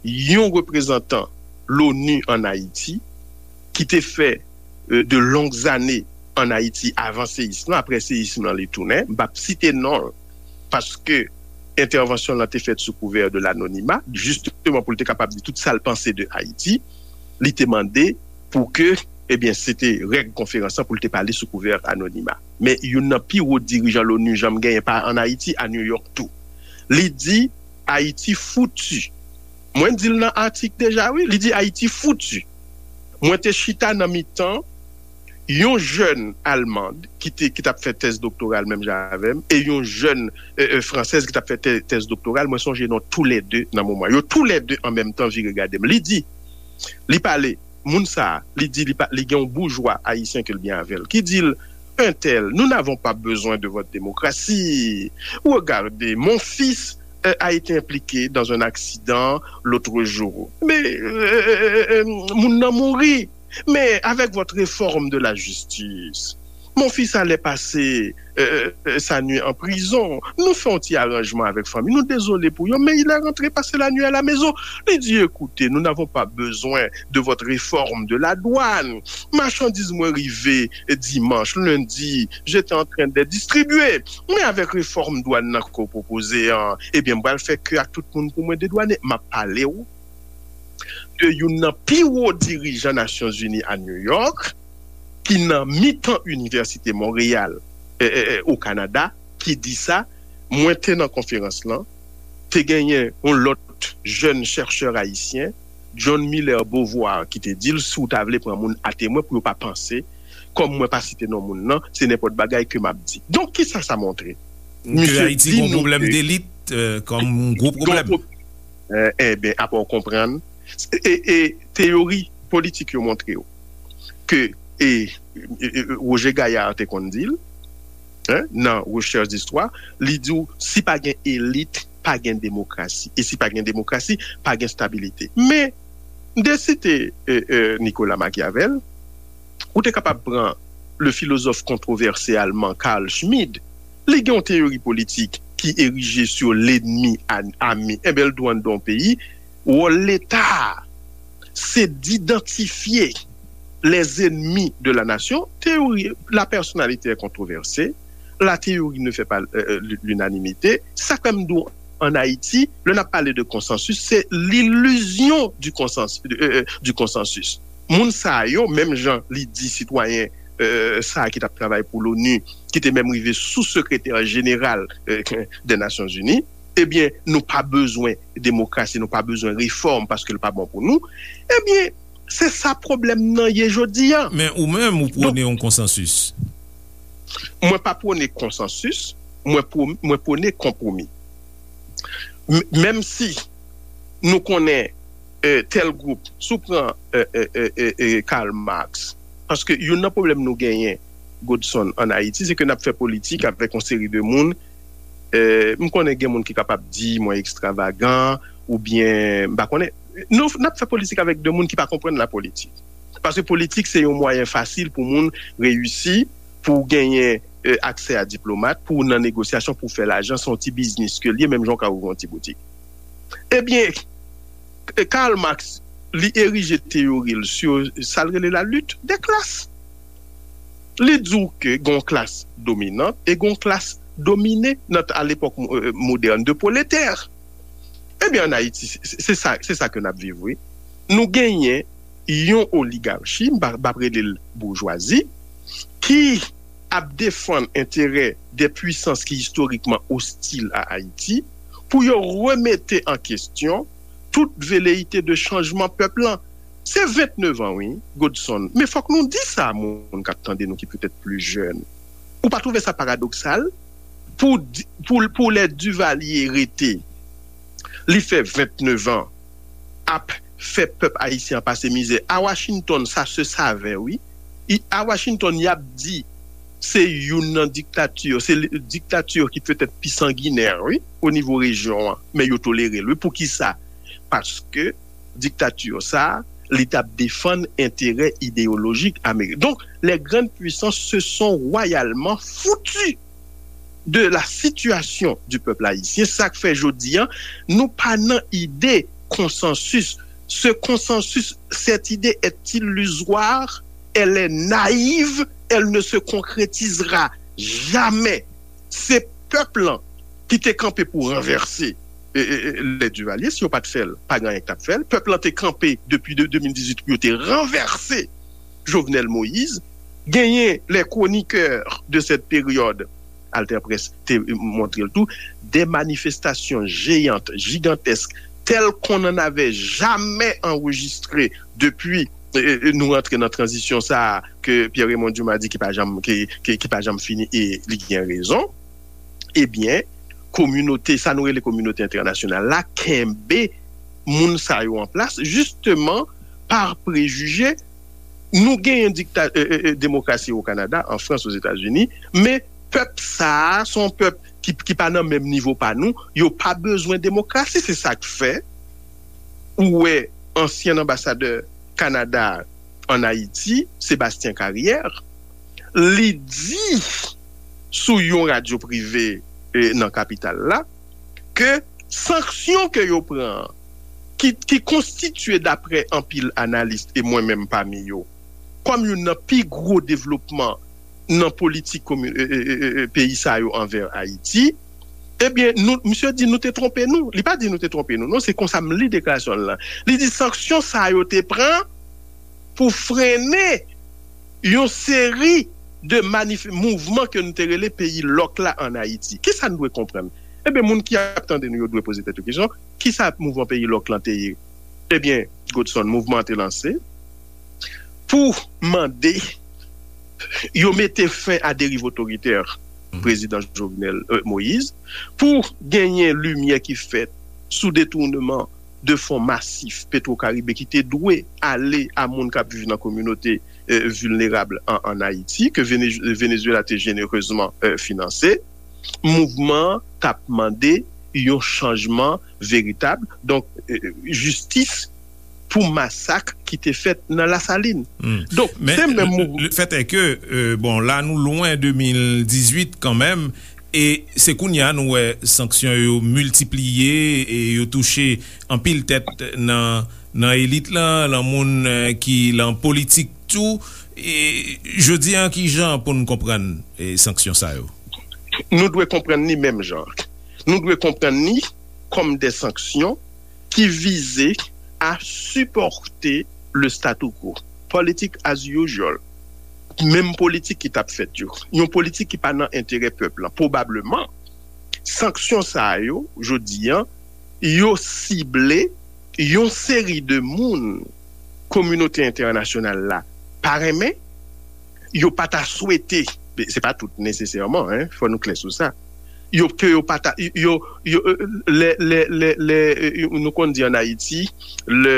yon reprezantan l'ONU ann Ayiti ki te fè de longues années ann Ayiti avan seyism lan. Apre seyism lan, li tounen. M p ap site non l, paske entèvansyon lan te fèt sou kouvè de lanonima, jisteman pou l te kapab di tout sa l panse de Ayiti. Li te mande pou ke, ebyen, se te règ konferans lan pou l te pale sou kouvè anonima. Men youn nan pi wo dirijan l'ONU janm genyen pa ann Ayiti, a New York tou. Li di Ayiti fouti. Mwen di l nan atik deja, wi. Li di Ayiti fouti. Mwen te chita nan mitan yon jèn almand ki te, ki t ap fè tèz doktoral menm jan avè m, e yon jèn fransèz ki t ap fè tèz doktoral. Mwen sonje non toulède nan moman. Yo toulède an menm tan vire gade m. Li di, li pale, moun sa a, li di li gen yon boujwa ayisyen ke l byen avè l, ki di l, un tel, nous n'avons pas besoin de votre démocratie. Regardez, mon fils euh, a été impliqué dans un accident l'autre jour. Mais euh, euh, euh, moun nan mouri. Mais avec votre réforme de la justice, mon fils allait passer euh, euh, sa nuit en prison. Nou fè yon ti aranjman avèk fanmi. Nou dezole pou yo, men il est rentré passer la nuit à la maison. Li di, écoutez, nous n'avons pas besoin de votre réforme de la douane. Machandiz mwen rive dimanch, lendi, j'étais en train de distribuer. Men avèk refòm dwàn nan ke w pwopoze an, ebyen, m pral fè ke ak tout moun pou mwen dedwane. M ap pale w de youn nan pi wo dirijan Nasyonzini a New York, ki nan mitan Inivèsite Monreyal, e, e, e, o Kanada, ki di sa. Mwen te nan konferans lan, te genyen yon lòt jèn chèchè ayisyen, John Miller Beauvoir, ki te di l, si w ta vle pran moun atemwen pou yo pa panse, kòm mwen pa site non moun nan, se nenpòt bagay ke m ap di. Donk, kisa sa montre? Ke Ayiti gen yon pwoblèm delit, euh, kòm yon gwo pwoblèm. Ebyen, apa w konprann? E, e teyori politik yo montre w ke, e, e, e, Roger Gayard te konn di l, hein, nan Recherche d'Histoire, li di w, si pa gen elit, pa gen demokrasi. E si pa gen demokrasi, pa gen stabilite. Men, m te site e, e, Nicolas Machiavel, ou te kapab pran le philosophe controversé allemand Carl Schmitt, li gen yon teyori politik ki erije sur l'ennemi ami. Enben, l di w anndan yon peyi, wòl Leta a, se d'idantifye les ennemis de la nation. Théorie, la personnalité est controversée, la théorie ne fait pas euh, euh, l'unanimité. Sa k fè m di w, an Ayiti, lè n ap pale de konsansis, se l'illusion du konsansis, euh, euh, du konsansis. Moun sa yo, menm jan li di sitwayen euh, sa a ki t ap travay pou l'ONU, ki te menm rive sou sekretè jeneral euh, des Nations Unies, ebyen, nou pa bezwen demokrasi, nou pa bezwen refòm paske l pa bon pou nou. Ebyen, se sa pwoblèm nan ye jodi a. Men ou menm, ou pwone yon konsansis. Mwen pa pwone konsansis, mwen, pwo, mwen pwone konpwomi. M, menm si nou konnen euh, tel gwoup, si w pran euh, euh, euh, euh, euh, Karl Marx, paske youn nan pwoblèm nou genyen, Godson, an Ayiti, se ke n ap fè politik avèk yon seri de moun. Euh, m konnen gen moun ki kapab di mwen ekstravagan, oubyen, m pa konnen. Nou, n ap fè politik avèk de moun ki pa konprann la politik. Paske politik, se yon mwayen fasil pou moun reyisi, pou w genyen euh, aksè a diplomat, pou w nan negosyasyon, pou w fè lajan, se yon ti biznis ke l ye, menm jan w ka ouvri yon ti boutik. Ebyen, Karl Marx, li erije teyori l sou sa l rele la lutte des classes. Li di w ke gen yon klas dominant e gen yon klas domine nan, à l'époque euh, moderne, de prolétaires. Ebyen, an Ayiti, se, se sa, se sa ke n ap viv, wi. Nou genyen yon oligachi, m pa, m pa rele l boujwazi, ki ap defann enterè de pwisans ki istorikman ostil a Ayiti, pou yo remete an kestyon tout veleyite de chanjman pèp lan. Se vennèf an, wi, Godson. Men fòk nou di sa a moun k ap tande nou ki petèt pli jèn. Ou pa twouve sa paradoksal? Pou, pou, pou lè Duvalier rete, li fè vennèf an ap fè pèp ayisyen an pase mizè. A Washington, sa se save, wi. I, a Washington, y ap di se youn nan diktati, se diktati ki petèt pi sanginè, wi, o nivo rejyon an. Men yo tolere l, wi. Poukisa? Paske diktati sa, li t ap defann enterè ideyolojik Amerik. Donk, les grandes puissances se sont royalement foutues de la situation du peuple haïtien. Sa k fè jodi a, nou pa nan ide konsansis. Ce consensus, cette idée est illusoire, elle est naïve, elle ne se concrétisera jamais. Se pèp lan ki te kanpe pou ranvèse e, e, e, lè Duvalier, si yo pa t fè l, pa gen anyen ki t ap fè l. Pèp lan te kanpe depi de, de mil dizuit pou yo te ranvèse Jovenel Moïse. Genyen les chroniqueurs de cette période, Alter Presse te montre l tou, des manifestations géantes, gigantesques, telles qu'on n'en avait jamais enregistré depuis euh, nou rantre nan tranzisyon sa a ke Pierre Raymond Dumas di ki pa janm, ki, ki, ki pa janm fini e li gen rezon, ebyen, kominote, sa nou rele kominote entènasyonal la, kenbe moun sa yo an plas, jisteman, pa prejije Nou genyen dikta, e, e, e, demokrasi o Kanada, an Frans, Ozetazini, men pèp sa a, se yon pèp ki, ki pa nan menm nivo pa nou, yo pa bezwen demokrasi, se sa k fè ou wè ansyen anbasadè Kanada an Ayiti, Sébastien Carrière, li di sou yon radyo prive, e, nan kapital la, ke sanksyon ke yo pran, ki, ki konstitye, daprè anpil analis, e mwen menm pami yo, kòm youn nan pi gwo devlopman nan politik komi- e, e, e, e, peyi sa yo anvè Ayiti, ebyen, nou, misye di nou te twonpe nou. Li pa di nou te twonpe nou, non, se konsa m li deklarasyon l lan. Li di sanksyon sa yo te pran pou frennen yon seri de manif- mouvman ke nou te rele peyi lòk la ann Ayiti. Kisa n dwe konprann? Ebyen, moun ki ap tande nou yo dwe poze tèt yo kesyon, kisa mouvman peyi lòk lan te ye? Ebyen, Godson, mouvman an te lanse pou mande yo mete fen a deriv otoritè prezidan Jovenel, e, Moïse, pou genyen limyè ki fèt sou detounman de fon masif Petro Caribe ki te dwe ale a moun k ap viv nan kominote, e, vilnerab an, ann Ayiti, ke Venez- Venezuela te jenerezman, e, finanse. Mouvman an t ap mande yon chanjman veritab, donk, e, jistis pou masak ki te fèt nan Lasalin. Donk, men se menm mouvman. Le fèt è ke, e, bon, la nou lwen de mil dizuit kanmenm, e se kounye a nou wè sanksyon yo miltipliye e yo touche anpil tèt nan, nan elit lan, lan moun, e, ki lan politik tou. E jodi a, ki jan pou n konprann, e, sanksyon sa yo? Nou dwe konprann li menm jan. Nou dwe konprann li kòm de sanksyon ki vize a sipòte le statu quo. Politik as usual. Menm politik ki t ap fèt yo. Yon politik ki pa nan enterè pèp lan. Pwobableman, sanksyon sa yo, jodi a, yo sible yon seri de moun kominote entènasyonal la pa renmen, yo pa ta swete, se pa tout nesesèman, en, fò nou klè sou sa. Yo, ke yo pa ta, yo, yo, e, lè, lè, lè, lè, e, nou konn di ann Ayiti, lè,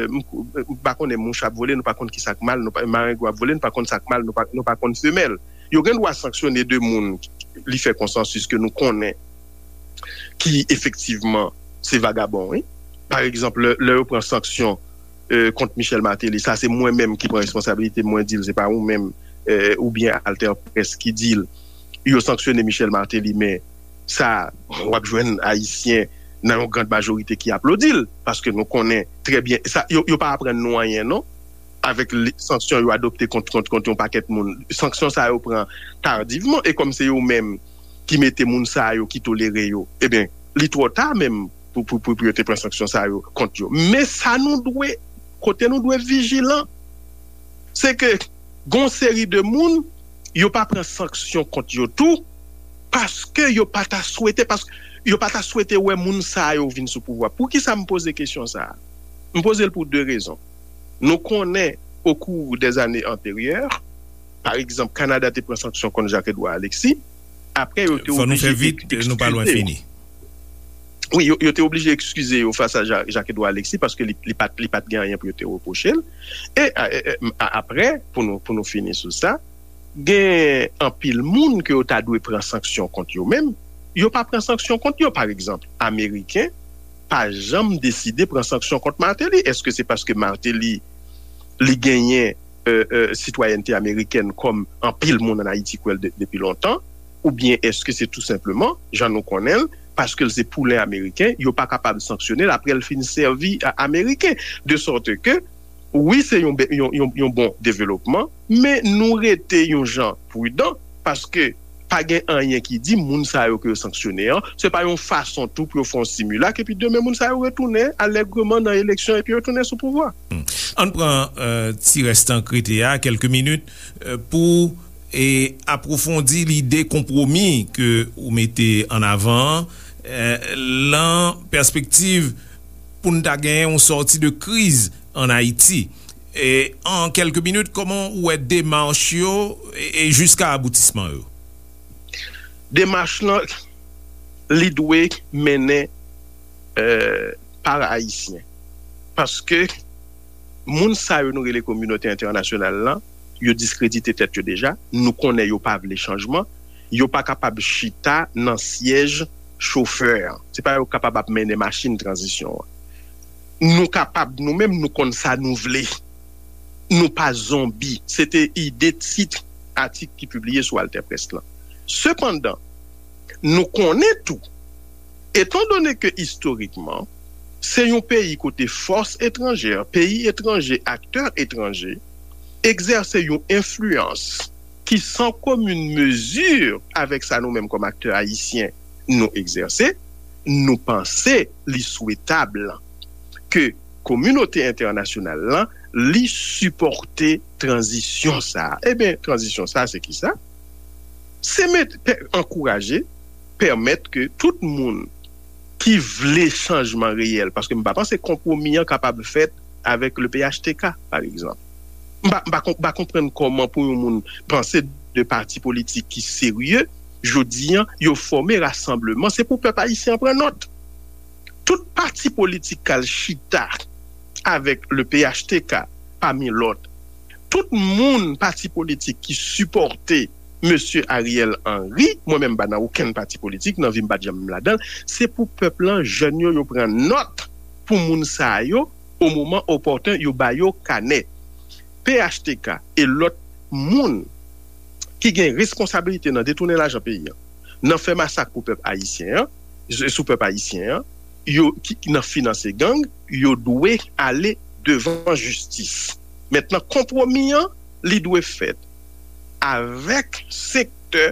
m, m pa konnen mouch ap vole, nou pa konn ki sa k mal, nou pa, marengwen ap vole, nou pa konn sa k mal, nou pa, nou pa konn femèl. Yo gen dwa sanksyone de moun li fè konsansis ke nou konnen ki efektivman se vagabon, wi. Pa egzanp, lè, lè yo pran sanksyon, e, kont Michel Martelly, sa se mwen menm ki pran responsabilite m, mwen di l, se pa ou menm, e, oubyen Alter Presse ki di l. Yo sanksyone Michel Martelly, men sa, w ap jwenn Ayisyen nan yon grand majorite ki aplodi l, paske nou konnen trè byen, sa, yo, yo pa aprann nou anyen, non. Avèk li- sanksyon yo adopte kont, kont, kont yon pakèt moun. Sanksyon sa yo pran tardivman, e kòm se yo menm ki mete moun sa yo, ki tolere yo, ebyen, li twò ta menm pou, pou, pou, pou yo te pran sanksyon sa yo kont yo. Men sa nou dwe, kote nou dwe vijilan, se ke gon seri de moun, yo pa pran sanksyon kont yo tou, paske yo pa ta swete, paske yo pa ta swete wè moun sa yo vin sou pouvwa. Poukisa m poze kesyon sa a? M poze l pou de rezon. Nou konnen, au cours des années antérieures, pa egzanp, Kanada te pran sanksyon kont Jacques Edouard Alexis, apre yo te oblije eskize. Fò nou fè vit, nou pa lwen fini. Wi, yo, yo te oblije eskize yo fas a Ja- Jacques Edouard Alexis, paske li, li pa t, li pa t gen anyen pou yo te repwoche l. E, a, e, e, a- apre, pou nou, pou nou fini sou sa, gen anpil moun ke yo ta dwe pran sanksyon kont yo menm, yo pa pran sanksyon kont yo. Pa egzanp, Ameriken pa janm deside pran sanksyon kont Martelly. Èske se paske Martelly, li genyen, e, e, sitwayènte amerikèn kòm anpil moun ann Ayiti kwè l de- depi lontan? Oubyen èske se tou senpleman, jan nou konnen l, paske l se poulen ameriken, yo pa kapab sanksyone l apre l fin sèvi a- ameriken? De sòte ke, wi, se yon, be- yon, yon, yon bon developman, men nou rete yon jan pridan, paske pa gen anyen ki di moun sa yo ke yo sanksyone an, se pa yon fason tou pou yo fè yon similak, epi demen moun sa yo retounen alègreman nan eleksyon, epi yo retounen sou pouvwa. Ann pran, e, ti rès tan k rete a, kèlke minit, e, pou, e, apwofondi lide konpwomi ke ou mete an avan an, e, lan pèspektiv pou n ta genyen yon sòti de kriz ann Ayiti. E, an kèlke minit, kòman ou wè demach yo e, e jiska aboutisman yo? Demach lan, li dwe mennen, e, pa Ayisyen. Paske Moun sa yo nou rele kominote entènasyonal lan, yo diskredite tèt yo deja. Nou konnen yo pa vle chanjman. Yo pa kapab chita nan syèj chofè an. Se pa yo k kapab ap mennen machin tranzisyon an. Nou kapab, nou menm, nou konn sa nou vle. Nou pa zonbi. Se te ide tit atik ki pibliye sou Alter Press lan. Sepandan, nou konnen tou, etandone ke istorikman, se yon peyi kote fòs etranjè, peyi etranje, aktè etranje, egzèse yon enfliyans ki san komin mezi avèk sa nou menm kòm aktè ayisyen nou egzèse, nou panse li swetab ke kominote entènasyonal lan, li sipòte tranzisyon sa a. Ebyen, tranzisyon sa a, se ki sa? Se met, pè, ankouraje, pèmèt ke tout moun ki vle chanjman reyèl, paske m pa panse konpwomi an kapab fèt avèk le P H T K, pa egzanp. M pa, m pa, m pa konprann kòman pou yon moun panse de pati politik ki serye, jodi an, yo fòme rasanbleman, se pou pèp ayisyen an pran nòt. Tout pati politik k al chita avèk le P H T K, pami lòt, tout moun, pati politik ki sipòte mesye Ariel Henry, mwen menm m pa nan okenn pati politik, nan vi m pa t janm ladan l, se pou pèp lan, jèn yo, yo pran nòt pou moun sa yo, o moman opòten, yo ba yo kanè. P H T K e lòt moun ki gen responsabilite nan detounen lajan peyi an, nan fè masak pou pèp ayisyen an, sou pèp ayisyen an, yo ki, ki nan finanse gang, yo dwe ale devan jistis. Mentnan, konpwomi an, li dwe fèt avèk sektè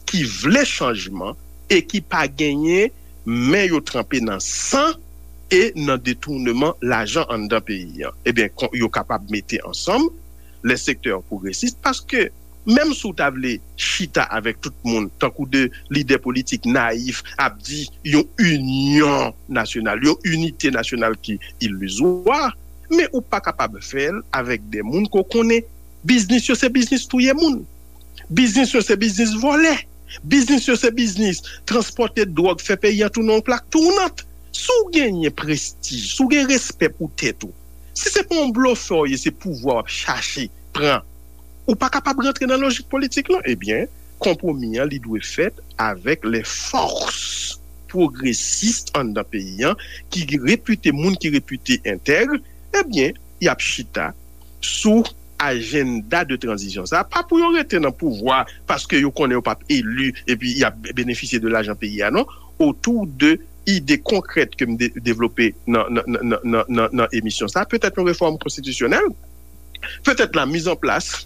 ki vle chanjman e ki pa genyen men yo tranpe nan san e nan detouneman lajan anndan peyi an. Ebyen, kon, yo kapab mete ansanm lè sektè pwogresis, paske menm si w ta vle chita avèk tout moun, tankou de lidè politik nayif ap di yon inyon nasyonal, yon inite nasyonal ki ilizwa, men ou pa kapab fè l avèk de moun ke w konnen biznis yo se biznis touye moun. Biznis yo se biznis vòlè. Biznis yo se biznis transpòte dwòg, fè peyi an tounen yon plak tounant. Si w genyen prestij, si w gen respè pou tèt ou, si se pa yon blofè w ye, se pouvwa w ap chache pran, ou pa kapab rantre nan lojik politik lan. Ebyen, konpwomi an, li dwe fèt avèk lè fòs pwogresis anndan peyi an, ki repite, moun ki repite entèg, ebyen, y ap chita sou ajanda de tranzisyon sa, pa pou yo rete nan pouvwa paske yo konnen yo p ap eli epi y ap benefisye de lajan peyi a, non. Otou de ide konkrèt ke m de-, devlope nan, nan, nan, nan, nan, nan emisyon sa, petèt yon refòm konstitisyonèl, petèt la mise en place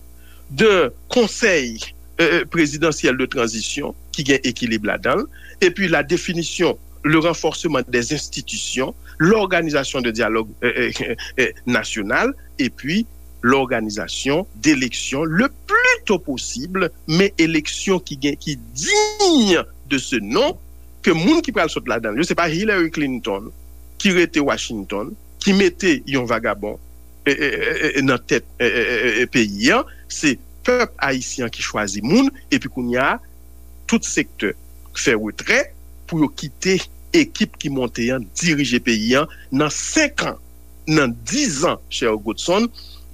de konsèy, euh, euh, présidentiel de transition ki gen ekilib ladan l, epi la définition, le renforcement des institutions, l'organisation de dialogue, euh, euh, euh, euh, national, epi l'organisation d'élections le plus tôt possible, men eleksyon ki gen, ki digne de ce nom, ke moun ki pral sot ladan l yo, se pa Hillary Clinton ki rete Washington, ki mete yon vagabon, e, e, e, e, nan tèt, e, e, e, e, e, peyi an, se pèp ayisyen an ki chwazi moun, epi kounye a, tout sektè fè retrè pou yo kite ekip ki monte an dirije peyi an nan senk an, nan diz an, chè Godson,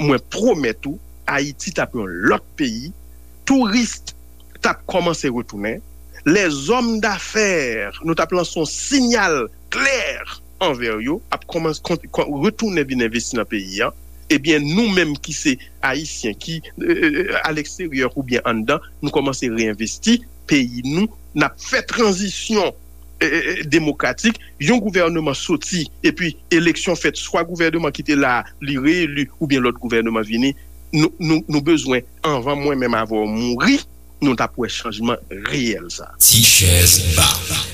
mwen pwomèt ou, Ayiti t ap yon lòt peyi, touris t ap kòmanse retounen, lèzòm dafè, nou t ap lanse yon siyal klè anvè yo, ap kòmanse kon-, kon-, retounen vin envesti nan peyi an. Ebyen, nou menm ki se Ayisyen, ki, euh, euh, aleksteryè oubyen anndan, nou kòmanse reenvesti peyi nou, n ap fè tranzisyon, euh, euh, demokratik, yon gouvèneman soti, epi eleksyon fèt, swa gouvèneman ki te la a, li reeli, oubyen lòt gouvèneman vini, nou, nou, nou bezwen, anvan mwen menm avè w mouri, nou t ap wè chanjman reyèl sa. Ti chèz ba.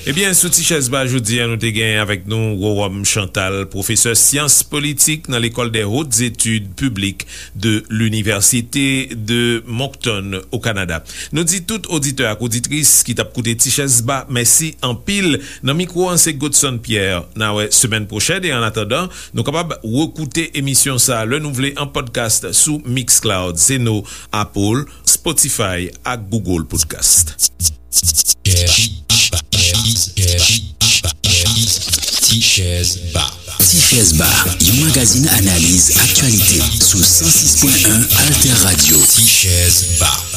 Ebyen, sou Ti chèz ba jodi a, nou te gen avèk nou Rowòm Chantal, pwofesè syans politik nan L'école des hautes études publiques de l'Université de Moncton, au Canada. Nou di tout oditè ak oditris ki t ap koute Ti chèz ba, mèsi anpil. Nan mikwo an, se Godson Pierre. N a wè semèn pwochèn, e an atandan, nou kapab rekoute emisyon sa a lè nou vle an podcast sou Mixcloud, Zeno, Apple, Spotify ak Google Podcast. Ti chèz ba. Ti Chèz Ba, yon magazin analiz aktyalite sou san sis pwen en Alter Radio. Ti Chèz Ba.